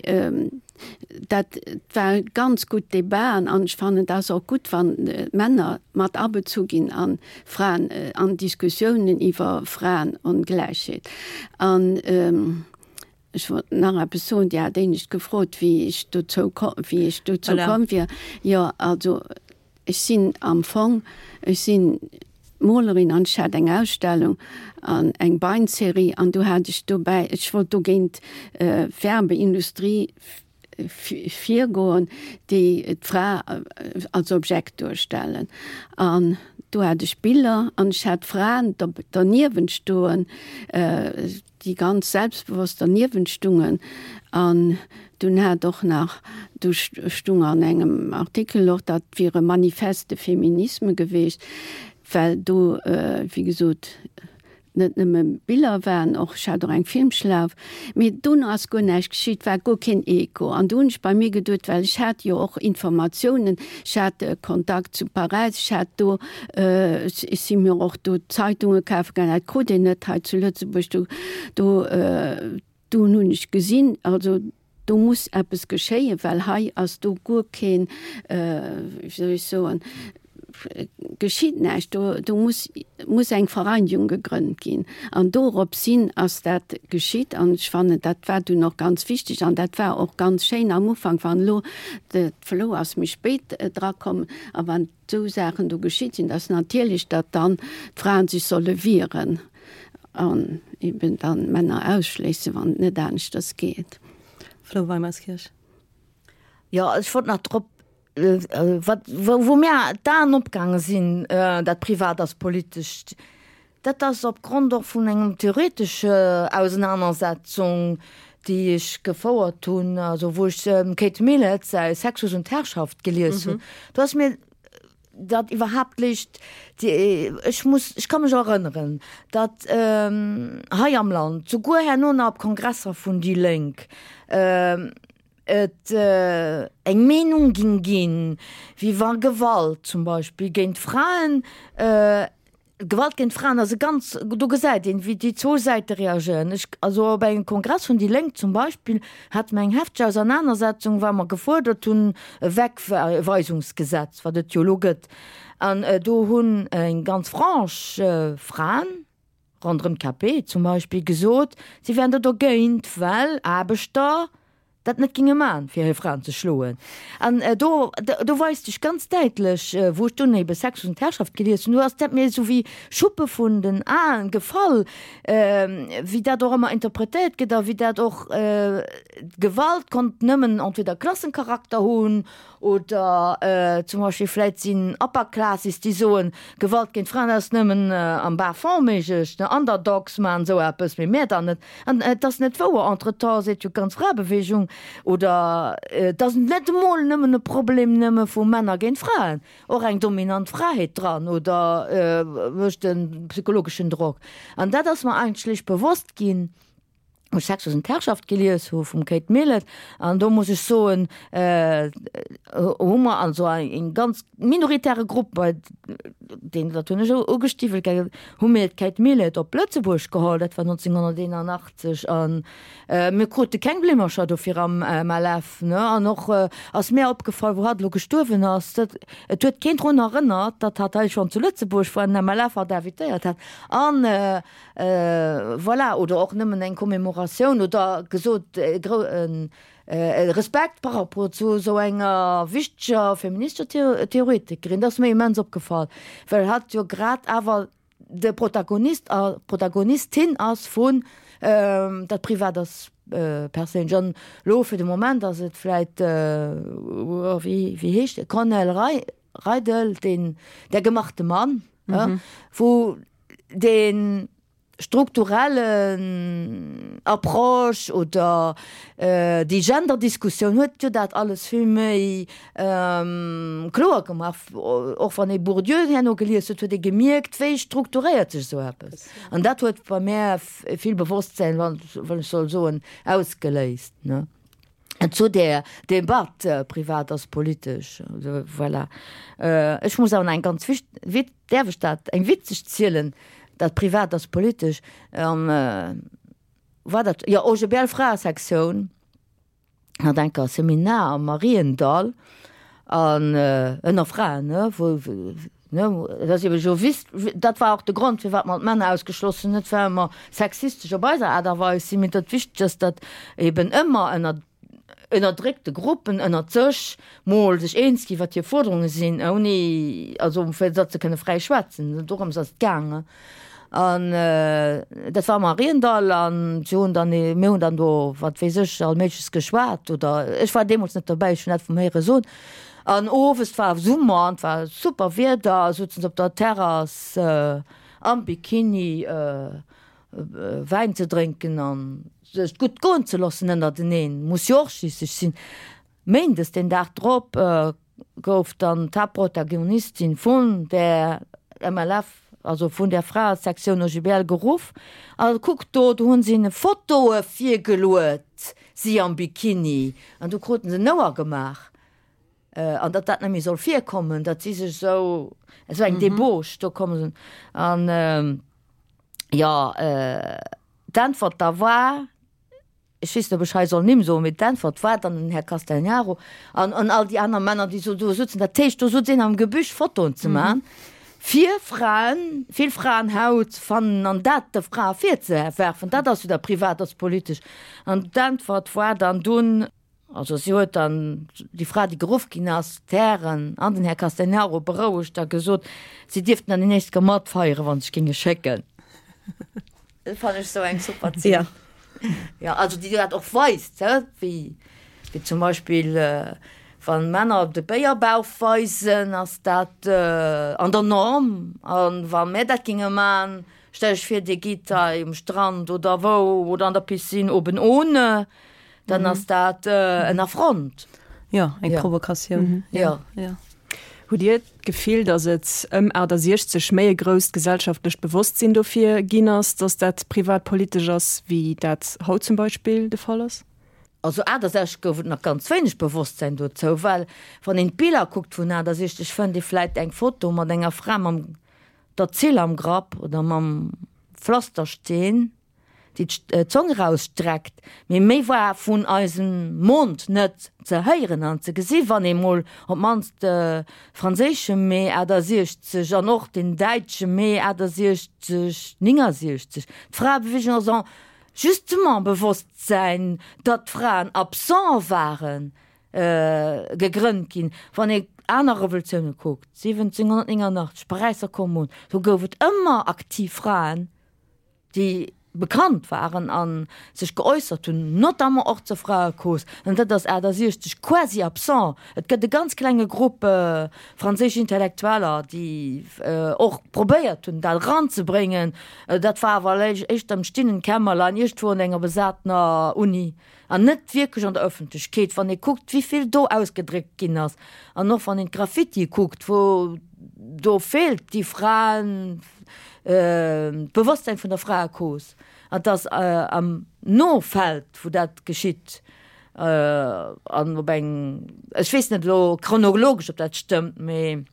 Dat war ganz gutt Debaten an ech fannen, et ass och gutt, wann d'Männer mat abezu ginn an Fraen, an Diskussiounen iwwer Fraenongläichheet. An ech wollt nach eppes soen, Dir hat éinescht gefrot, wéi ech dozou, wéi ech dozou komm wier. Jo, also Ech sinn am Fong, ech sinn Molerin an ech hat eng Ausstellung an eng Beinserie an do hat ech dobäi, ech wollt dogéint d'Werbeindustrie virgoen, déi d'Fra als Objekt duerstellen. An do hat ech Biller an ech hat Fraen derniewent stoen, déi ganz selbstbewosst derniewent stungen an dunn hat och nach, du stung an engem Artikel och, dat wier e Manifeste de féminisme geweecht, well do, wéi gesot, net nëmme Biller waren, och ech hat och eng Filmschlauf, mee dono ass guer näischt geschitt, war guer keen Echo. An do hunn ech bei mir geduet, well ech hat jo och Informatiounen, ech hat Kontakt zu Paräis, ech hat do Ech si mir och do Zeitunge kafe gaangen, dat krut een net hei zu Lëtzebuerg. Do, do, dunn hunn ech gesinn, also do muss eppes geschéien, well hei ass do guer keen, wéi soll ech soen, geschitt näischt. Do, do muss, muss eng Vereinigung gegrënnt ginn. An dorops hin ass dat geschitt an ech fannen, dat war dunn och ganz wichteg an dat war och ganz schéin am Ufank, wann elo, de Flo ass méi spéit drakomm, a wann esou Saachen do geschitt sinn, dass natierlech, datt dann d'Fraen sech solle wieren an eben dann d'Männer ausschléissen, wann et net aneschters geet. Flo Weimerskirch. Jo, ech wollt nach drop, wat, wou mir d'Aen opgaange sinn, dat Privat ass politesch, dat ass opgrond och vun engem theoretesche Ausenanersetzung, déi ech gefouert hunn, also wou ech dem Kate Millett säi Sexus und Herrschaft gelies hunn. Do ass mir dat iwwerhaapt liicht, ech muss, ech ka mech erënneren, datt hei am Land, souguer herno nach op Kongresser vun déi Lénk, et eng Meenung ging ginn, wéi wa Gewalt zum Beispill géint Fraen, Gewalt géint Fraen ass e ganz, do gesäit een, wéi déi zwou Säite reagéieren. Ech, also op engem Kongress vun déi Lénk zum Beispill, hate mer eng hefteg Ausernanersetzung, well mer gefuerdert hunn e Wegweisungsgesetz, wat et jo elo gëtt. An do hunn eng ganz Frange Fraen, ronderëm d'KP zum Beispill, gesot, si wären do dogéint, well Aarbechter dat net ginge man, fir hir Fraen ze schloen. An do, do weist sech ganz däitlech, wou ech dunn ebe Sex und Herrschaft gelies hunn, do ass dat mir esou wéi Schuppe vun den Aen gefall, wéi dat och ëmmer interpretéiert gëtt a wéi dat och, Gewalt konnt nëmmen entweder Klassencharakter hunn Oder zum Beispill vläit sinn Upper Classes, déi soen, Gewalt géint Fraen ass nëmmen am Bas-fond méiglech, ne Underdogs maachen esou eppes, mee mär dann net. An et ass net wouer. Entretemps seet jo d'ganz Fraebewegung, oder et ass net emol nëmmen e Problem nëmme vu Männer géint Fraen, och eng dominant Fra heet dran oder mécht e psychologeschen Drock. An dat ass mer eigentlech bewosst ginn. Wou ech Sexus und Herrschaft gelies hu vum Kate Millett, an do muss ech soen, hu mer also eng ganz minoritäre Grupp, bei deen, dat hunn ech ugestiwwelt, gell, hu mir d'Kate Millett op Lëtzebuerg geholl, dat war 1981, a mir krute keng Blimmercher dofir am MLF, ne. An och ass mär opgefall, wou hatt elo gestuerwen ass, dat et huet keen drun erënnert, datt hatt hei schonn zu Lëtzebuerg war, den MLF hatt invitéiert hat an, Voilà, oder och nëmmen eng Commémoratioun oder gesot e Respekt par rapport zu esou enger wichteger feministescher Theoretikerin. Dat ass mir immens opgefall, well hatt jo grad awer de Protagonist a Protagonistin ass vun Dat Privat ass perséinlech. An elo fir de Moment ass et vläit, wéi heescht e, Cornel Reidel, deen Der gemachte Mann, wou dee strukturellen Approche oder déi Genderdiskussioun huet jo dat alles vill méi kloer gemaach. Och wann ee Bourdieu herno gelies huet, huet ee gemierkt, wéi strukturéiert sech esou eppes. An dat huet bei mär vill Bewosstsäin, wann ech soll soen, ausgeléist. Zu där Debatt, privat ass politesch, voilà. Ech muss awer nach eng ganz wicht, wit, däerf ech dat, eng witzeg zielen, dat privat ass politesch, am, war dat, jo, OGBL Fraesektioun hat enker e Seminar am Mariendall an ënner Fraen, ne, wou, Ne, et ass ebe jo wis, dat war och de Grond, firwat mer d'Männer ausgeschloss hunn, net well mer sexistesch op eiser Aart a Weis sinn, mee datt wichteg ass, datt eben ëmmer ënner ënnerdréckte Gruppen ënnert sech mol sech eens ginn, wat hir Fuerderunge sinn, ouni, also fir datt se kënne fräi schwätzen. Dorëms ass et gaangen. An dat war am Mariendall an si hunn dann, mir hunn dann do, wat weess ech, all Méigleches geschwat oder ech war deemools net dobäi, ech hunn dat vum Héiere soen. An owes, et war Summer an et war super Wieder, souzen se op der Terrass am Bikini Wäin ze drénken an sech gutt goen ze loossen ënnerteneen, muss jo och schliisslech sinn. Méindes den Dag drop gouf dann d'Haaptprotagonistin vun der MLF, also vun der Fraesektioun OGBL geruff a kuckt do, do hunn se hinne Fotoe virgeluet, si am Bikini, an du kruten se en Ouer gemaach, an datt dat net méi soll virkommen, datt si sech esou, esou eng Débauche do kommen sinn. An jo, d'Äntwert da war, Ech weess net, ob ech hei soll Nimm soen, mee d'Äntwert war dann den Här Castegnaro an an all déi aner Männer, déi so do sutzen. Dat heescht, do sutz een am Gebüsch Fotoen ze man, fir Fraen, vill Fraenhaut ze fannen an dat de Frae virzewerfen. Dat ass jo da privat ass politesch. An d'Äntwert war dann dunn, also si huet dann, déi Fra, déi geruff ginn ass, d'Hären an den Här Castegnaro berouegt a gesot, si dierften dann déi nächst Kéier matfeieren, wa se sech géinge schécken. Dat fannen ech sou eng super Zeen. Ja. Ja, also déi dat och weist, hä, wéi, wéi zum Beispill wann Männer de Béierbauch weisen, ass dat an der Norm. An wa mär dat géinge man, stell ech vir, Dir gitt hei um Strand oder wou oder an der Piscine oben ohne, dann ass dat en Affront. Jo, eng Provokatioun. Jo. Jo. Hutt Dir d'Gefill, datt et ëm 68 méi e grousst gesellschaftlecht Bewosstsinn dofir ginn ass, datt dat privat politesch ass, wéi dat haut zum Beispill de Fall ass? Also 68 gouf et nach ganz wéineg Bewosstsäin dozou, well wann een d'Biller kuckt vun 68, fënnt ee vläit eng Foto mat enger Fra mam der Zill am Grapp oder mam Pflastersteen. déi d'Zong erausstreckt, mee méi war vun eisem Mond net ze héieren an ze gesi wann ee mol op d'mannst de franséische Mee 68 an och den däitsche Mee 68, 69, d'Fraebewegung ass en justement Bewosstsäin, datt d'Fraen absent waren, gegrënnt ginn. Wann ee aner Revolutioune kuckt, 1789, Paräisser Kommunn, do gouf et ëmmer aktiv Fraen, déi bekannt waren a sech geäussert hunn, notamment och zur Fraecause, an dat ass 68 quasi absent. Et gëtt e ganz klenge Grupp franséisch Intellektueller, déi och probéiert hunn, dat eranzebréngen. Dat war awer éischter am stillen Kämmerlein, iergendwou an enger besatener Uni an net wierklech an der Ëffentlechkeet. Wann ee kuckt, wéi vill do ausgedréckt ginn ass, an och wann een d'Graffitie kuckt, wou do feelt déi Fraen, d'Bewosstsäin vun der Fraecause, an dass am. no fält, wou dat geschitt an op eng, ech weess net elo chronologesch, ob dat stëmmt, mee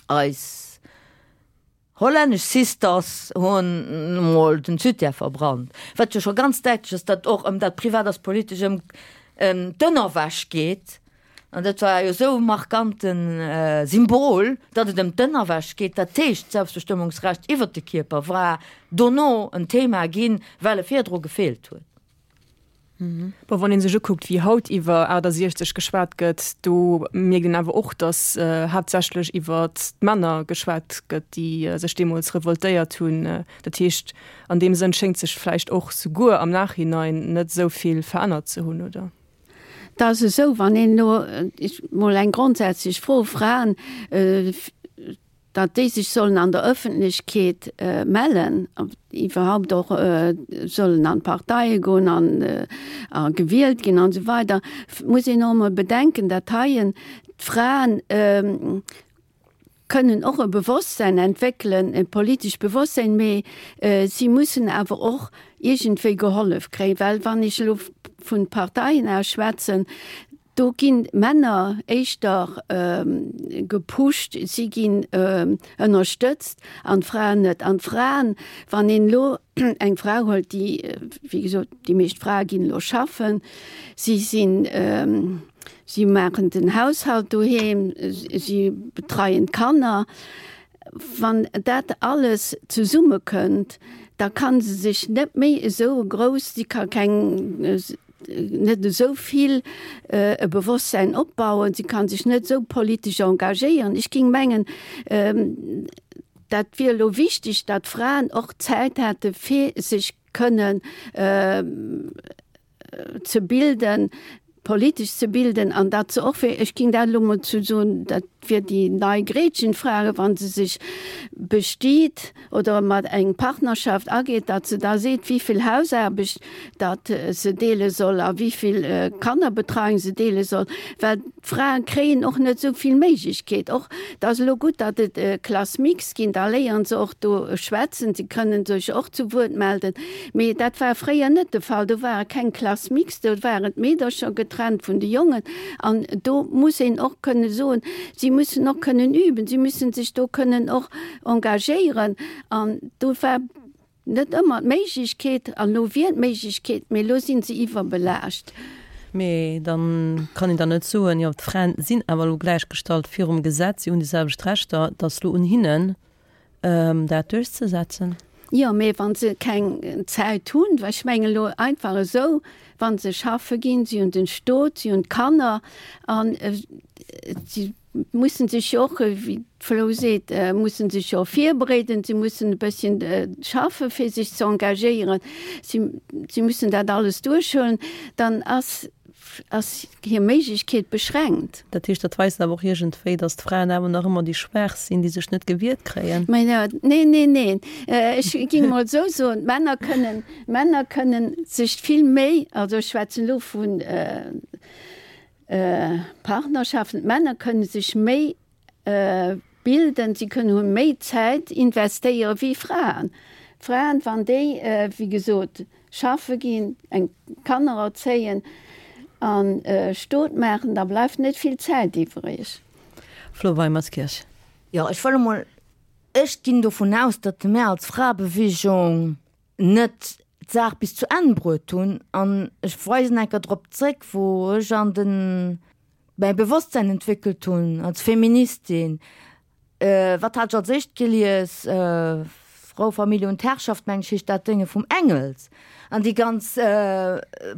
eis hollännesch Sisters hunn emol den Zütär verbrannt, wat jo scho ganz däitlech ass, datt och ëm dat Privat ass politesch, ëm d'Ënnerwäsch geet. An dat war jo esou e markante Symbol, datt et ëm d'Ënnerwäsch geet. Dat heescht, d'Selbstbestëmmungsrecht iwwert de Kierper war dono en Thema ginn, well e virdru gefeelt huet. Bon, wann ee sech ukuckt, wéi haut iwwer 68 geschwat gëtt, do mierkt een awer och, datt haaptsächlech iwwer d'Männer geschwat gëtt, déi sech deemools revoltéiert hunn. Dat heescht, an deem Sënn schéngt sech vläicht och souguer am Nachhinein net esou vill verännert ze hunn, oder? Et ass esou, wann een elo mol eng grondsätzlech Fro, Fraen, datt déi sech sollen an der Ëffentlechkeet mellen, iwwerhaupt och sollen an d'Parteie goen an a gewielt ginn an esou weider, muss een och emol bedenken, datt heien d'Fraen kënnen och e Bewosstsein entwéckelen, e politescht Bewosstsein, mee si mussen awer och iergendwéi gehollef kréien, well wann ech elo vun Parteien aus schwätzen, do ginn d'Männer éischter gepusht, si ginn ënnerstëtzt an d'Fraen net. An d'Fraen, wann een elo eng Fra huelt, déi, wéi gesot, déi meescht Frae ginn elo schaffen, si sinn, Si maachen den Haushalt doheem, si betreien d'Kanner. Wann dat alles zesummekënnt, da ka se sech net méi esou grouss, si ka keng, net esou vill e Bewosstsäin opbauen, si ka sech net esou politesch engagéieren. Ech géing mengen, dat wier elo wichteg, datt d'Fraen och Zäit hätte fir sech kënnen ze bilden, politesch ze bilden an dat se och fir, ech ging dat elo mol zu soen, dat wier déi nei Gretchenfrage, wa se sech bestiet oder mat eng Partnerschaft ageet, datt se da seet, wéivill Hausaarbecht datt se deele soll a wéivill Kannerbetreiung se deele soll, well d'Frae kréien och net esou vill Méiglechkeet. Och et ass elo gutt, datt et Classe mixte ginn, da léieren se och do schwätzen, se kënnen sech och zu Wuert melden. Mee dat war fréier net de Fall. Do ware keng Classe mixte, do waren d'Meedercher getrennt vun de Jongen. An do muss een och kënne soen, si mussen och kënnen üben, si mussen sech do kënnen och engagéieren. An do war net ëmmer d'Méiglechkeet, an elo wier d'Méiglechkeet, mee elo si se iwwerbelaascht. Mee da kann een dann net soen, jo d'Fraen sinn awer elo gläichgestallt virum Gesetz, si hunn déi selwecht Rechter, et ass elo un hinnen, dat duerchzesetzen. Jo, mee wa se keng Zäit hunn, well ech mengen elo einfach esou, wa se schaffe ginn, si hunn den Stot, si hunn d'Kanner an si mussen sech jo och, wéi d'Flo seet, mussen sech jo virbereeden, si mussen e bësschen schaffe fir sech ze engagéieren, si si mussen dat alles duerchhuelen, dann ass ass hir Méiglechkeet beschränkt. Dat heescht, dat weist awer och iergendwéi, datt d'Fraen awer nach ëmmer déi Schwaach sinn, déi sech net gewiert kréien. Mä jo, neen, neen, neen. Ech géing emol esou soen, d'Männer kënnen, d'Männer kënnen sech vill méi, also ech schwätzen elo vu Partnerschaften, d'Männer kënne sech méi bilden, si kënnen hu méi Zäit investéiere wéi Fraen. Fraen, wann déi, wéi gesot, schaffe ginn, eng Kanner erzéien a Stot maachen, da bleift net vill Zäit iwwreg. Flo Weimerskirch. Jo, ech wëll emol, ech ginn dovun aus, datt mär als Fraebewegung net d'Saach bis zu Enn bruet hunn an ech weisen eng Kéier drop zréck, wou ech an den, mäi Bewosstsein entwéckelt hunn als Feministin. Wat hat ech als éischt gelies? Frau, Familie und Herrschaft, meng ech, heescht dat Dénge vum Engels. An déi ganz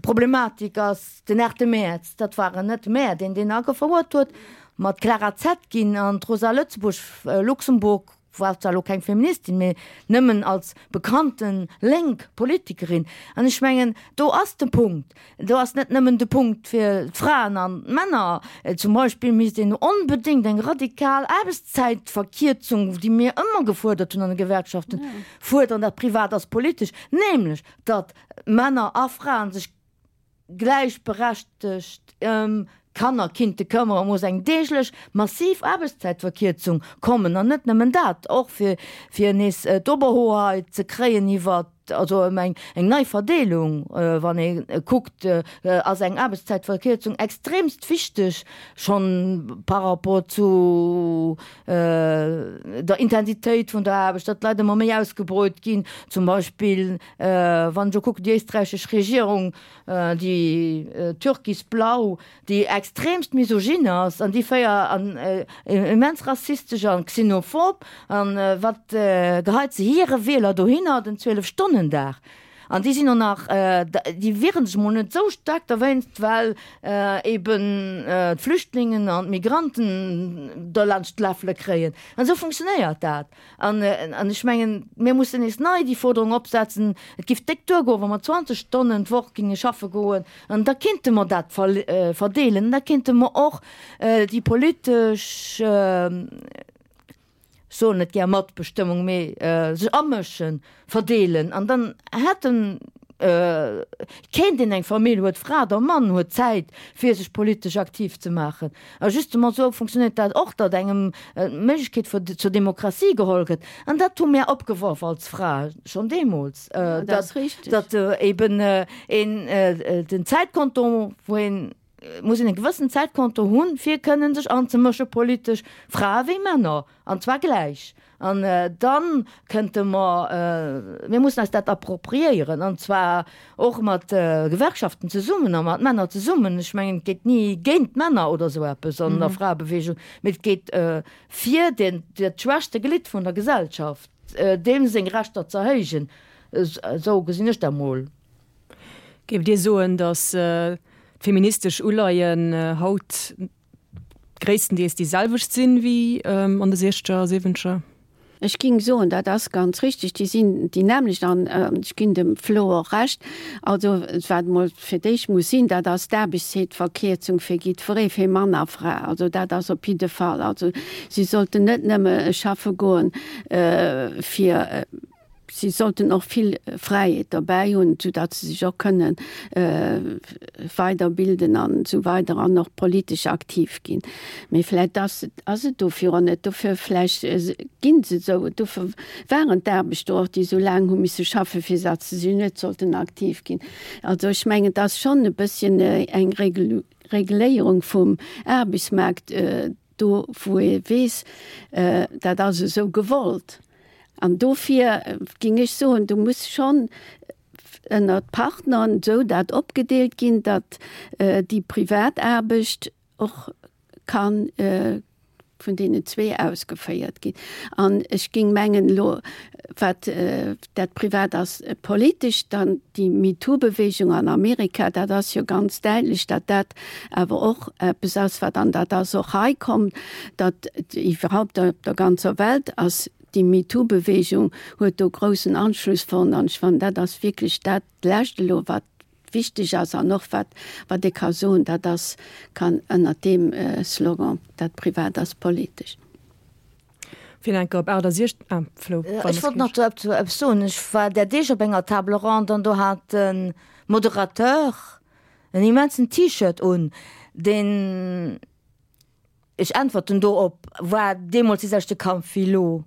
Problematik ass den 8 Mäerz, dat waren net mär, deen deen agefouert huet, ma d'Clara Zetkin an d'Rosa Lëtzebuerg, Luxemburg, war zwar elo keng Feministin, mee nëmmen als bekannte lénk Politikerin. An ech mengen, do ass de Punkt. Do ass net nëmmen de Punkt fir d'Fraen an d'Männer. Zum Beispill misst een onbedéngt eng radikal Aarbechtszäitverkierzung, déi mir ëmmer gefuerdert hunn an de Gewerkschaften, fuerderen. Dat privat ass politesch, nämlech datt Männer a Fraen sech gläichberechtegt ëm d'Kanner kinnte këmmere, muss eng deeglech massiv Aarbechtszäitverkierzung kommen. An net nëmmen dat, och fir fir nees d'Oberhoheit ze kréien iwwer. also ëm eng eng nei Verdeelung. Wann ee kuckt, ass eng Aarbechtszäitverkierzung extremst wichteg, schonn par rapport zu der Intensitéit vun der Aarbecht, datt d'Leit ëmmer méi ausgebreut ginn. Zum Beispill wann ech elo kucken, déi éisträichesch Regierung, déi türkisblau, déi extremst misogyn ass an déi féier an immens rassistesch an xenophob an wat geheit se hire Wieler dohinner, den 12 Stonnen Dag an déi sinn och nach déi wieren sech mol net esou staark derwéinst well eben d'Flüchtlingen an d'Migranten derlaanscht d'Läffele kréien an esou funktionéiert dat. An ech mengen, mir mussen nees nei déi Forderung opsetzen, et géif déck duergoen, wa mer 20 Stonnen d'Woch géinge schaffe goen, an da kinnte mer dat verdeelen. An da kinnte mer och déi politesch, ech soen net gär Matbestëmmung, mee sech amëschen, verdeelen. An dann hätten Kéint een eng Famill huet, Fra oder Mann huet Zäit fir sech politesch aktiv ze maachen. A justement esou funktionéiert dat och, datt engem d'Méiglechkeet fir zur Demokratie geholl gëtt. An dat hu mär opgeworf als Fra schonn deemools, datt datt eben een den Zäitkonto, wou een muss een e gewëssen Zäitkonto hunn, fir kënnen sech anzemësche politesch, Frae wéi Männer, an zwar gläich. An da kënnte mer, mir mussen eis dat appropriéieren, an zwar och mat Gewerkschaften zesummen a mat Männer zesummen. Ech mengen, et geet ni géint d'Männer oder esou eppes an der Fraebewegung, mee et geet fir den, dat schwächste Glidd vun der Gesellschaft, deem seng Rechter ze erhéijen. Esou gesinn ech dat mol. Géift Dir soen, datt d'feministesch Uleien haut gréisstendeels déi selwecht sinn wéi an de siechzeger a siwwenzeger? Ech ging soen, dat ass ganz richtig, déi sinn déi nämmlecht an ech ginn dem Flo och Recht. Also wat emol fir d'éischt muss sinn, dat ass d'Aarbechtszeetverkierzung fir jiddweree, fir Mann a Fra. Also dat ass op jidde Fall. Also si sollten net nëmme schaffe goen fir Si sollten och vill Fräiheet derbäi hunn, soudatt se sech och kënne weiderbilden an esou weider an och politesch aktiv ginn. Mee vläicht ass et, ass et dofir och net, dofir vläicht ginn se esou, dofir waren d'Aarbechter och, déi esou laang hu misse schaffen, fir datt se sech net sollten aktiv ginn. Also ech mengen, et ass schonn e bësschen eng Reguléierung vum Aarbechtsmaart, do wou ee weess, dat ass esou gewollt. An dofir géing ech soen, do muss schonn ënnert Partnern esou dat opgedeelt ginn, datt déi privat Aarbecht och ka vun deenen zwee ausgeféiert ginn. An ech géing mengen elo, wat dat privat ass politesch, dann déi MeToo-Bewegung an Amerika, dat ass jo ganz däitlech, datt dat awer och eppes ass, wat, an dat ass och hei komm, datt iwwerhaupt op der ganzer Welt ass déi MeToo-Bewegung huet do groussen Anschluss fonnt. An ech fannen, dat ass wierklech dat Lescht elo, wat wichteg ass an och wat, wat ee ka soen, dat ass, kann ënnert deem Slogan, dat privat ass politesch. Fir enker op 68, ah, Flo, Ech wollt nach dozou eppes soen. Ech war där Deeg op enger Table ronde an do hat de Moderateur en immensen T-Shirt un, deen, ech äntwerten do op, war deemools dee selwechte Kampf wéi elo.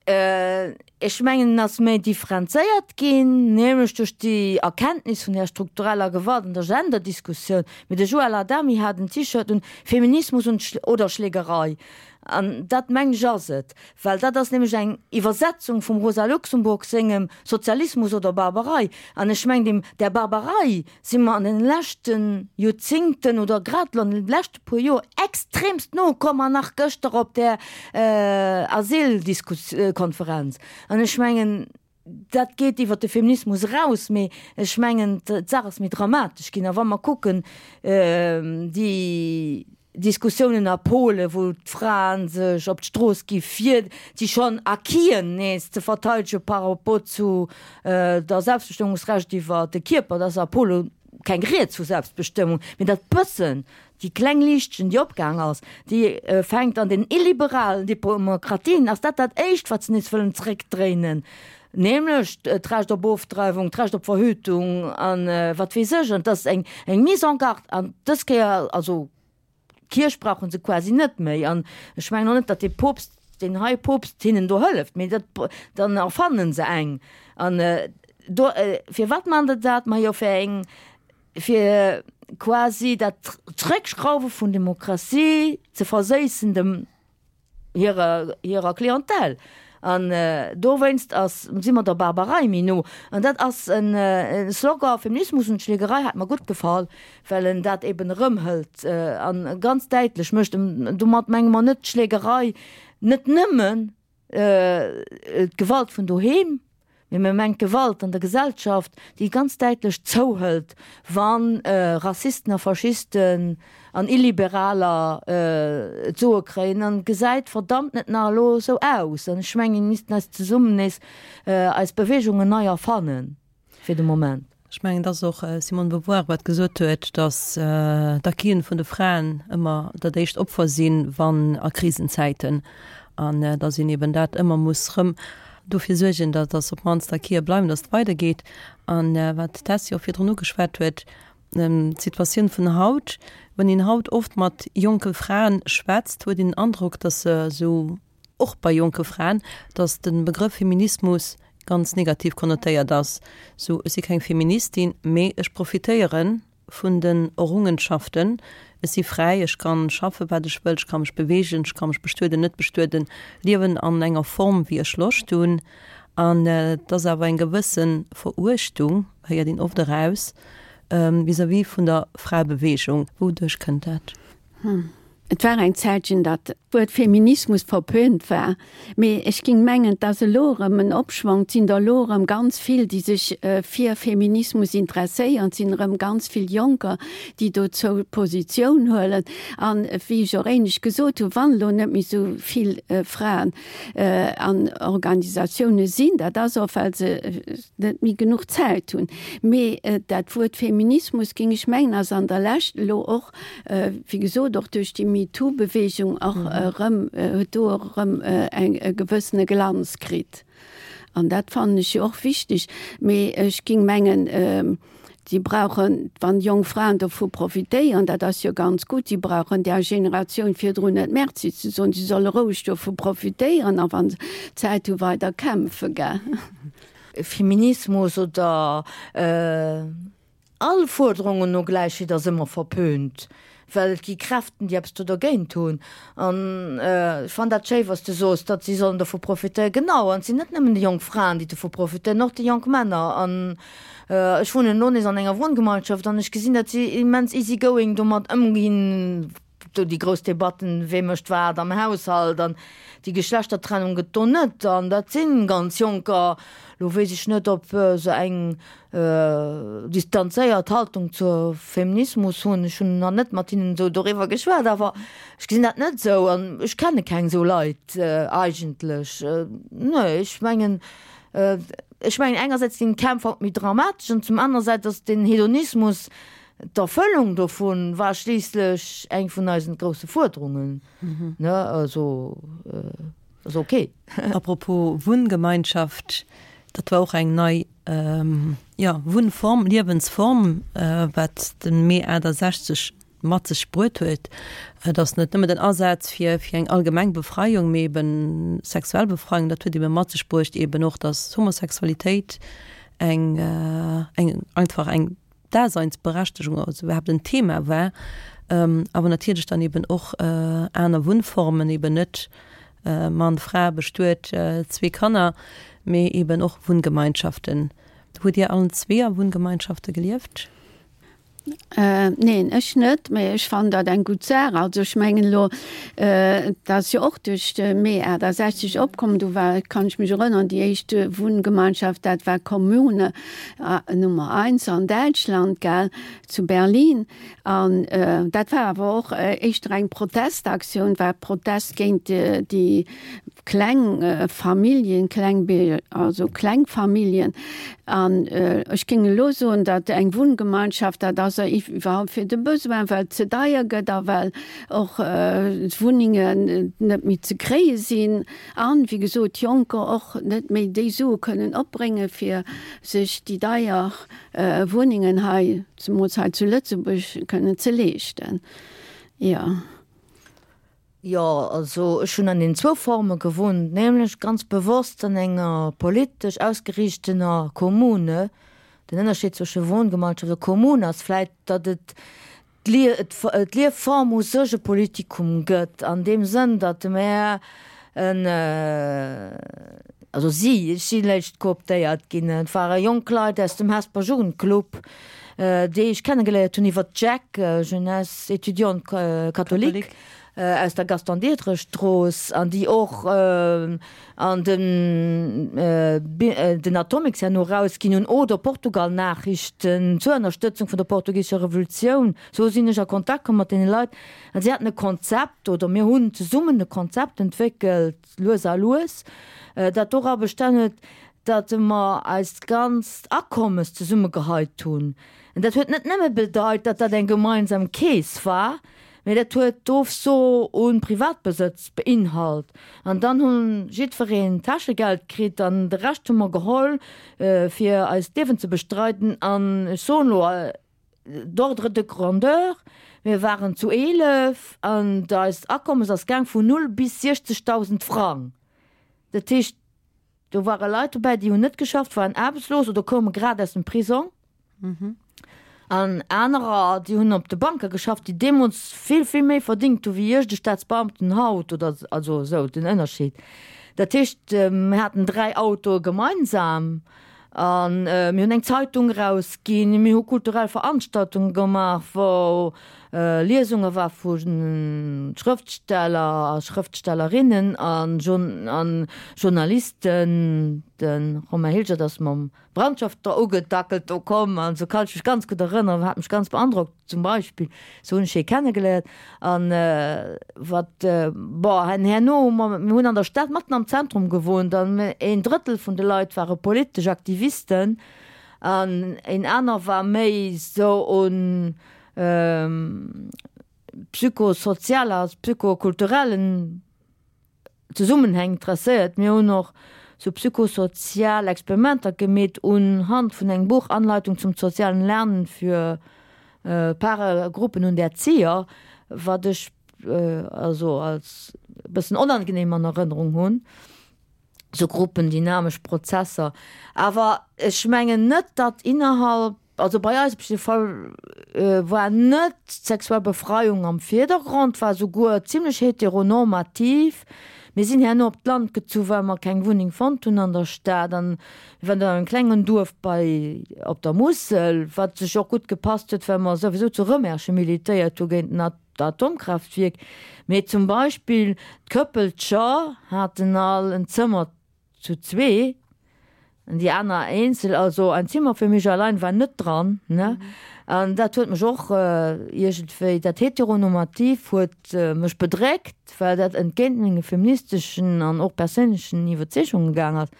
Ech mengen, en ass méi differenzéiert ginn, nämlech duerch déi Erkenntnis vun där struktureller Gewalt an der Genderdiskussioun. Mee de Joël Adami hat en T-Shirt un, Feminismus und oder Schlägerei. An dat, mengen ech, ass et, well dat ass nämlech eng Iwwersetzung vum Rosa Luxemburg sengem Sozialismus oder Barbarei. An ech mengen, deem, där Barbarei si mer an den leschte Joerzingten oder grad elo an de leschte puer Joer extremst no komm an nach gëschter op där Asyldiskuskonferenz. An ech mengen, dat geet iwwert de Feminismus eraus, mee ech mengen, d'Saach ass méi dramatesch ginn. A wa mer kucken, déi Diskussiounen a Polen, wou d'Frae sech op d'Strooss gi fir déi schonn Acquisen nees ze verteidege par rapport zu der Selbstbestëmmungsrecht iwwer de Kierper, dat ass a Pole keng Rieds vu Selbstbestëmmung, mee dat bëssen, déi kleng Liichtchen, déi opgaang ass, déi fänkt an den illiberalen Demokratien, ass dat dat éischt, wat se nees wëllen zréckdréinen, nämlech d'Recht op Ofdreiwung, d'Recht op Verhütung a wat weess ech. An et ass eng Mise en garde an dës Kéier, also d'Kierch brauche se quasi net méi. An ech mengen och net, datt de Poopst. deen hei Poopst hinnen do hëlleft, mee dat, dann erfannen se eng. An do, firwat man se dat? Majo fir eng, fir quasi dat Zréckschrauwe vun Demokratie ze verséissen dem hirer, hirer Clientèle. An dowéinst ass, si mer der Barbarei méi no. An dat ass en Slogan, Feminismus und Schlägerei, hat mer gutt gefall, well en dat eben erëmhëlt a ganz däitlech mécht. Domat menge mer net d'Schlägerei, net nëmmen d'Gewalt vun doheem, Mee mir mengen d'Gewalt an der Gesellschaft, déi ganz däitlech zouhëlt, wa Rassisten a Faschisten an Illiberaler d'Soe kréien. An et gesäit verdammt net nach elo esou aus. An ech mengen, mir missten eis zesummen nees eis Beweegungen nei erfannen fir de Moment. Ech mengen, et ass och Simone Beauvoir, wat gesot huet, datt d'Acquisen vun de Fraen ëmmer dat éischt Opfer sinn, wann a Krisenzäiten, an datt een eben dat ëmmer muss rëm dofir suergen, datt datt op d'mannst d'Acquisen bleiwen, datt et weidergeet. An wat d'Tessy och virdrun ugeschwat huet, d'Situatioun vun haut, wann een haut oft mat jonke Fraen schwätzt, huet een den Androck, datt se esou, och bei jonke Fraen, datt de Begrëff Feminismus ganz negativ konnotéiert ass, sou ech si keng Feministin, mee ech profitéiere vun den Errungenschaften, ech si fräi, ech kann schaffe wat ech wëll, ech ka mech beweegen, ech ka mech bestueden, net bestueden, liewen an enger Form wéi ech Loscht hunn. An et ass awer eng gewësse Veruechtung, héiert een oft eraus, vis-à-vis vun der Fraebeweegung. Wouduerch kënnt dat? Et war eng Zäitchen, datt d'Wuert Feminismus verpönt war, mee ech ging mengen, 't ass elo erëm en Opschwong. 't sinn der elo erëm ganz vill, déi sech fir Feminismus interesséieren. 't sinn erëm ganz vill Jonker, déi dozou Positioun huelen. An wéi ech och éinescht gesot hunn, wann elo net méi esou vill Fraen an Organisatioune sinn, dat ass och, well se net méi genuch Zäit hunn. Mee dat Wuert Feminismus, géing ech mengen, ass an der Lescht elo och, wéi gesot, och duerch déi MeToo-Beweegung och erëm, huet do och erëm eng e gewëssene Glanz kritt. An dat fannen ech jo och wichteg. Mee ech géing mengen, si brauchen, wann jonk Fraen dovu profitéieren, dat ass jo ganz gutt, si brauchen där Generatioun virdrun net Merci ze soen, si solle roueg dovu profitéieren a wa se Zäit hu weider kämpfe, gell. Feminismus oder all Fuerderungen no Gläichheet ass ëmmer verpönt, well et gi Kräften, déi eppes do dergéint hunn. An ech fannen dat schéi, wa s de soos, datt si sollen dovu profitéieren. Genau, an et sinn net nëmmen déi jonk Fraen, déi dovu profitéieren, och déi jonk Männer. An ech wunnen elo nees an enger Wunngemeinschaft an ech gesinn, datt si immens easy going domat ëmginn, Do déi grouss Debatten, wee mécht wat am Haushalt an déi Geschlechtertrennung gëtt do net. An dat si ganz Jonker. Lo weess ech net, ob se eng distanzéiert Haltung zur Feminismus hunn. Ech hunn nach net mat hinnen esou doriwwer geschwat, awer ech gesinn dat net esou an ech kenne keng esou Leit eigentlech. Nee, ech mengen, ech mengen engersäits sinn d'Kämpf haut méi dramatesch an zum anersäits ass den Hedonismus, D'Erfëllung dovun war schliisslech eng vun eisen grousse Fuerderungen, ne? Also ass ok. Apropos Wunngemeinschaft, dat war och eng nei, jo, Wunnform, Liewensform, wat de Mee 68 mat sech bruet huet. Et ass net nëmme den Asaz fir fir eng allgemeng Befreiung, mee eben sexuell Befreiung, dat huet ebe mat sech bruecht eben och, datt Homosexualitéit eng eng einfach eng Daseinsberechtegung, also iwwerhaapt en Thema war, awer natierlech dann eben och aner Wunnformen, eben net Mann, Fra, bestuet, zwee Kanner, mee eben och Wunngemeinschaften. Hutt Dir allen zwee a Wunngemeinschafte gelieft? Neen, ech net, mee ech fannen dat eng gutt Saach. Also ech mengen elo, dat ass jo och duerch de Mee 68 opkomm, do war, kann ech mech erënnern, déi éischt Wunngemeinschaft, dat war Kommune, Nummer eins an Däitschland, gell, zu Berlin. An dat war awer och éischter eng Protestaktioun, war Protest géint déi kleng Familljen, kleng, also kleng Familljen. An ech géing elo soen, datt eng Wunngemeinschaft, dat ass iwwerhaupt fir de Besoin, well et ze deier gëtt a well och d'Wunnengen net méi ze kréie sinn. An, wéi gesot, Jonker och net méi déi Sue kënnen opbréngen, fir sech déi deier Wunnengen hei, zemools hei zu Lëtzebuerg, kënnen ze leeschten. Jo. Jo, also ech hunn an den zwou Forme gewunnt, nämlech ganz bewosst an enger politesch ausgeriichtener Kommune. Den Ënnerscheed zwësche Wohngemeinschaft a Kommune ass vläit, datt et d'Liefform u sech e Politikum gëtt, an deem Sënn, datt mär en, also si, ech si léischt kooptéiert ginn, et ware jonk Leit aus dem Hesper Jugendclub, déi ech kennegeléiert hunn iwwer d'JEC, Jeunesse Étudiante Catholique, aus der Gaston Diderich Strooss, an déi och an den den Atomics herno erausginn hunn, oder Portugal Nachrichten zur Ënnerstëtzung vun der portugisescher Revolutioun. Sou sinn ech a Kontakt komm mat deene Leit an si haten e Konzept, oder mir hunn zesummen e Konzept entwéckelt, lues a lues, dat dora bestan huet, datt mer eist ganzt Akommes zesummegeheit hunn. An dat huet net nëmme bedeit, datt dat eng gemeinsam Keess war, mee dat huet d'Ofso u Privatbesëtz beinhalt. An dann hu jiddwereen Täschegeld kritt an de Rescht hu mer geholl, fir eist Liewen ze bestreiden. An ech soen elo d'ordre de grandeur, mir waren zu 11 an eist Akommes ass gaang vun null bis 60.000 Frang. Dat heescht, Do ware Leit dobäi, déi hunn net geschafft, waren aarbechtslos oder koume grad aus dem Prisong. An anerer, déi hunn op de Banke geschafft, déi deemools vill, vill méi verdingt hu wéi iergend e Staatsbeamten haut oder also esou den Ënnerscheed. Dat heescht, mir haten 3 Autoe gemeinsam a mir hunn eng Zeitung erausginn, mir hu kulturell Veranstaltunge gemaach, wou Liesunge war vu Schrëftsteller a Schrëftstellerinnen a Journalisten. De Romain Hilgert ass mam Brandschafter ugedackelt do komm an esou kann ech mech ganz gutt erënneren, hat mech ganz beandrockt zum Beispill. Esou hunn ech hie kennegeléiert. An wat, bon, herno hu mer, mir hunn an der Stad matten am Zentrum gewunnt an een Drëttel vun de Leit ware politesch Aktivisten an een aner war méi esou un psychosozial a psychokulturellen Zesummenhäng interesséiert. Mir hunn och sou psychosozial Experimenter gemeet un Hand vun engem Buch Anleitung zum sozialen Lernen für Paare, Gruppen und Erzieher, wat ech also als e bëssen onangenehm an Erënnerung hunn. Sou gruppendynamesch Prozesser. Awer ech mengen net, datt innerhalb, also bei eis op jidde Fall, war net d'sexuell Befreiung am Virdergrond, war souguer zimlech heteronormativ. Mir sinn herno op d'Land gezu well mer keng Wunneng fonnt hunn an der Stad an mir waren dann an engem klengen Duerf bei op der Musel, wat sech och gutt gepasst huet, well mer souwisou zu Rëmerschen militéiert hu géint den Atomkraaftwierk. Mee zum Beispill d'Këppelcher haten all en Zëmmer zu zwee an déi aner eenzel, also ein Zimmer für mich allein war net dran, ne. An dat huet mech och iergendwéi, dat Heteronormativ huet mech bedréckt, well dat entgéint menge feministeschen an och perséinlechen Iwwerzeegunge gaang ass.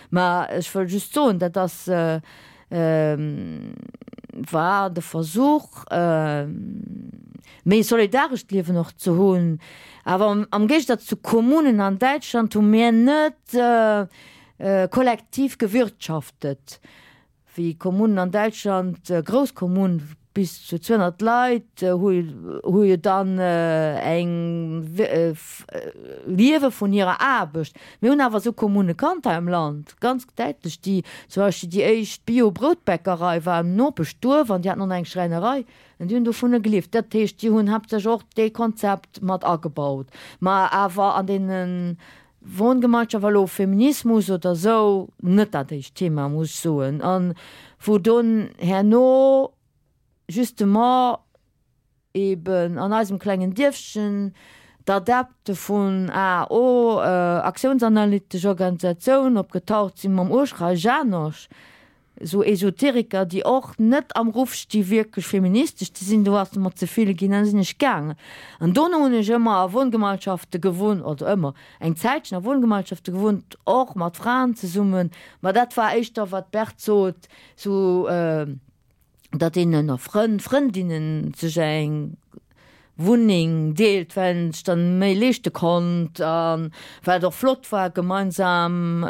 Mä ech wëll just soen, dat ass, war de Versuch, méi e solidarescht Liewen och ze hunn. Awer am Géigesaz zu Kommunen an Däitschland hu mir net kollektiv gewirtschaftet, wéi Kommunen an Däitschland, grouss Kommunen bis zu 200 Leit, hu jo dann eng liewe vun hirer Aarbecht. Mir hunn awer esou Kommune kannt hei am Land, ganz däitlech, déi zum Beispill déi éischt Bio-Broutbäckerei war am Nopeschduerf an déi haten och nach eng Schräinerei an déi hunn dovunner gelieft. Dat heescht, déi hunn haaptsächlech och dee Konzept mat agebaut. Ma awer an deene Wohngemeinschaft war elo Feminismus oder esou net dat éischt Thema, muss ech soen. An wou dunn herno justement eben an eisem klengen Dierfchen d'Adepte vun AO, Aktiounsanalytesch Organisatioun, opgetaucht sinn mam Urschrei Janosch, esou Esoteriker, déi och net am Ruff sti wierklech feministesch ze sinn, do ass et mer ze vill ginn, dann sinn ech gaangen. An dono hunn ech ëmmer a Wohngemeinschafte gewunnt, also ëmmer, eng Zäitchen a Wohngemeinschafte gewunnt, och mat Fraen zesummen, ma dat war éischter, wat d'Berthe sot, sou, datt een ënner Frënn, Frëndinnen sech eng. Wunneng deelt, well een sech dann méi leeschte konnt a well et och flott war gemeinsam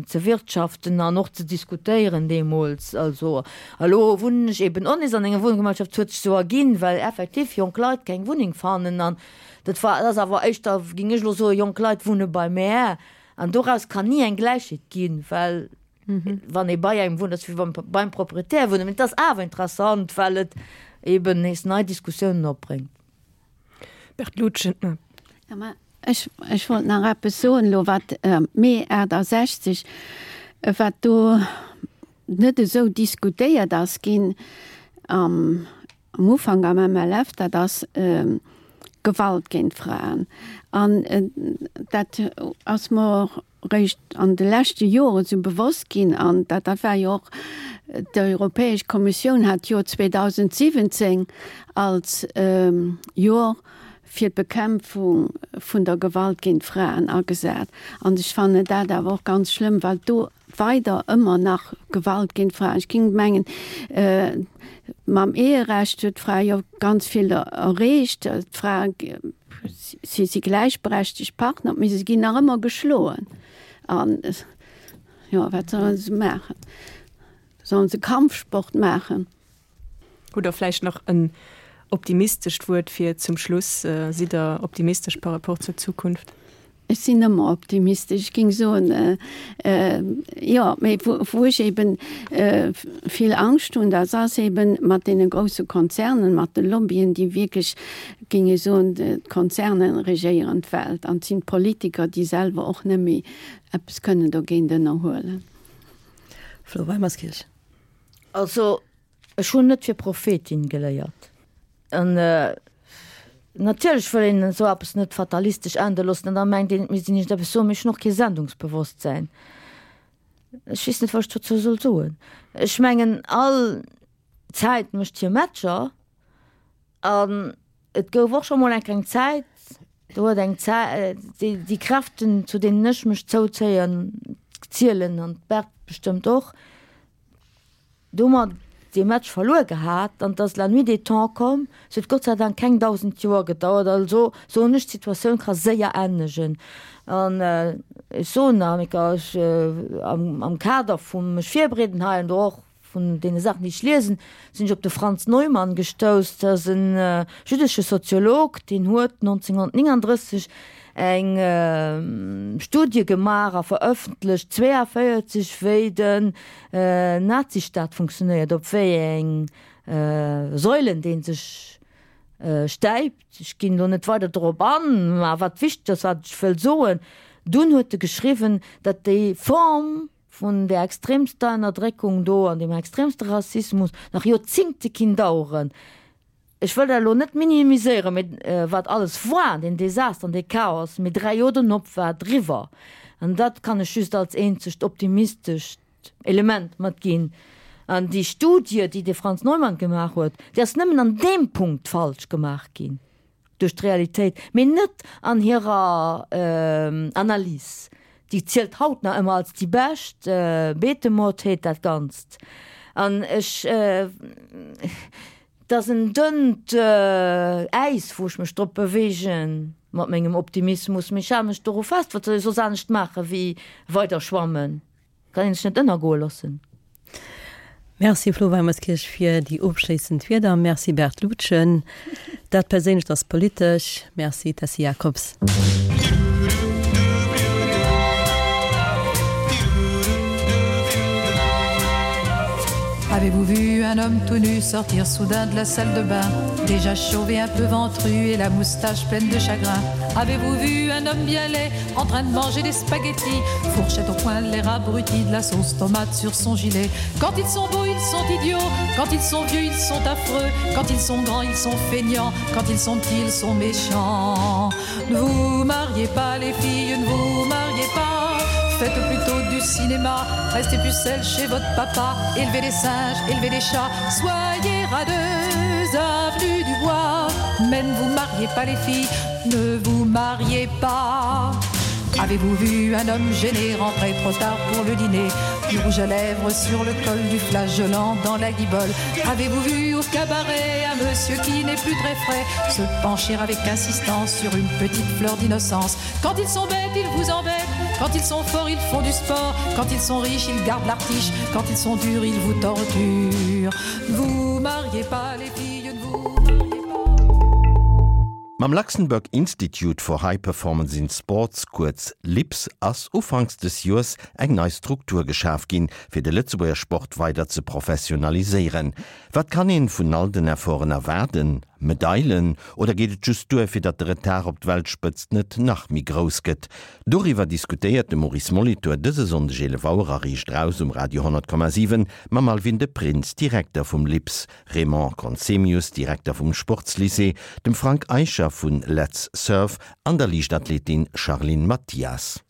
ze wirtschaften an och ze diskutéieren deemools. Also a lo wunnen ech eben och nees an enger Wunngemeinschaft, et huet sech esou erginn, well effektiv jonk Leit keng Wunneng fannen an dat war, dat ass awer éischter, géing ech elo soen, jonk Leit wunne bei mär an doraus kann ni eng Gläichheet ginn, well wann ee bei engem wunnt, ass wéi wann beim Proprietär wunnen. Mee et ass awer interessant, well et eben nees nei Diskussiounen opbréngt. Bert Lutgen. Ja, mä ech, ech wollt nach eppes soen elo, wat Mee 68, wat do net esou diskutéiert ass ginn am am Ufank am MLF, dat ass Gewalt géint Fraen. An dat ass mer och réischt an de leschte Joren esou bewosst ginn, an dat dat war jo och, d'Europäesch Kommissioun hat d'Joer 2017 als Joer fir d'Bekämpfung vun der Gewalt géint Fraen agesat. An ech fannen dat awer och ganz schlëmm, well do weider ëmmer nach Gewalt géint Fraen, ech géing mengen, mam Eherecht huet d'Fra jo ganz vill erreecht, d'Fra Si si gläichberechtegt Partner, mee se ginn nach ëmmer geschloen. An jo, wat sollen se maachen? Sollen se Kampfsport maachen? Hutt Der vläicht nach en optimistescht Wuert fir zum Schluss? Sidd Der optimistesch par rapport zur Zukunft? Ech sinn ëmmer optimistesch. Ech géing soen, jo, mee wou ech eben vill Angscht hunn, dat ass eben mat deene grousse Konzernen, mat de Lobbyen, déi wierklech, géing ech soen, d'Konzerne regéieren d'Welt an et sinn d'Politiker, déi selwer och net méi eppes kënnen dogéint ënnerhuelen. Flo Weimerskirch. Also, Ech hunn net fir Prophetin geléiert. An natierlech wëll een esou eppes net fatalistesch ende loossen an da mengt een, et misst een iergendeppes soen, mee ech hunn och kee Sendungsbewosstsäin. Ech weess net, wat ech dozou soll soen. Ech mengen, all Zäit mécht hir Matcher an et gouf och scho mol eng kleng Zäit, do huet eng Zäit, déi Kräften, zu deenen ech mech zouzéien, zielen an d'Berthe bestëmmt och, Do hu mer dee Match verluer gehat an et ass la nuit des temps komm. Se huet Gott sei Dank keng 1.000 Joer gedauert. Also soen ech, d'Situatioun ka séier ännegen. An ech soen nach eng Kéier, ech am Kader vum mech virbereeden hei an do och vun deene Saachen, déi ech liesen, sinn ech op de Franz Neumann gestouss. Dat ass e jüddesche Soziolog, deen huet 1939 eng Studie gemaach a verëffentlecht 42, wéi den Nazistaat funktionéiert, op wéi eng Säulen dee sech stäipt. Ech ginn elo net weider dorop an, mä wat wichteg ass, wat ech wëll soen, dunn huet e geschriwwen, datt déi Form vun där extremster Ënnerdréckung do an deem extremste Rassismus nach Joerzingte kinn daueren. Ech wëll dat elo net minimiséieren, mee wat alles war, deen Desaster an dee Chaos, mee 3 Joer donop war et eriwwer. An dat kann ech just als eenzegt optimistescht Element matginn. An déi Studie, déi de Franz Neumann gemaach huet, déi ass nëmmen an deem Punkt falsch gemaach ginn duerch d'Realitéit, mee net an hirer Analys. Déi zielt haut nach ëmmer als déi bescht. Beetemord heet dat Ganzt. An ech. 't ass en dënnt Äis, wou ech mech drop beweegen mat mengem Optimismus, mee ech hale mech doru fest. Wat soll ech soss anescht maache wéi weider schwammen? Kann een sech net ënnergoe loossen. Merci Flo Weimerskirch fir déi ofschléissend Wierder. Merci Bert Lutgen. Dat Perséinlecht ass politesch. Merci Tessy Jacobs. Avez-vous vu un homme tout nu sortir soudain de la salle de bain Déjà chauve et un peu ventru et la moustache pleine de chagrin Avez-vous vu un homme bien laid en train de manger des spaghettis Fourchette au poing l'air abruti de la sauce tomate sur son gilet Quand ils sont beaux ils sont idiots Quand ils sont vieux ils sont affreux Quand ils sont grands ils sont feignants Quand ils sont petits ils sont méchants Ne vous mariez pas les filles ne vous mariez pas Faites plutôt du cinéma Restez pucelle chez votre papa Élevez les singes, élevez les chats Soyez radeuses, avenue du bois Mais ne vous mariez pas les filles Ne vous mariez pas. Avez-vous vu un homme gêné rentrer trop tard pour le dîner Du rouge à lèvres sur le col du flageolant dans la guibole Avez-vous vu au cabaret un monsieur qui n'est plus très frais se pencher avec insistance sur une petite fleur d'innocence Quand ils sont bêtes, ils vous embêtent Quand ils sont forts, ils font du sport Quand ils sont riches, ils gardent l'artiche Quand ils sont durs, ils vous torturent Vous mariez pas les filles, ne vous mariez pas Mam Luxembourg Institute for High Performance in Sports, kuerz LIPS, ass ufanks des Joers eng nei Struktur geschaf ginn, fir de Lëtzebuerger Sport weider ze professionaliséieren. Wat kann een vun all den Efforten erwaarden? Medailen? Oder geet et just duer, fir datt de Retard op d'Weltspëtzt net nach méi grouss gëtt? Doriwwer diskutéiert de Maurice Molitor dëse Sonndeg 11 Auer a Riicht Raus um Radio 10,7 mam Alwin de Prins, Direkter vum LIPS, Raymond Conzemius, Direkter vum Sportslycée, dem Frank Eicher vun Letz Surf an der Liichtathletin Charline Mathias.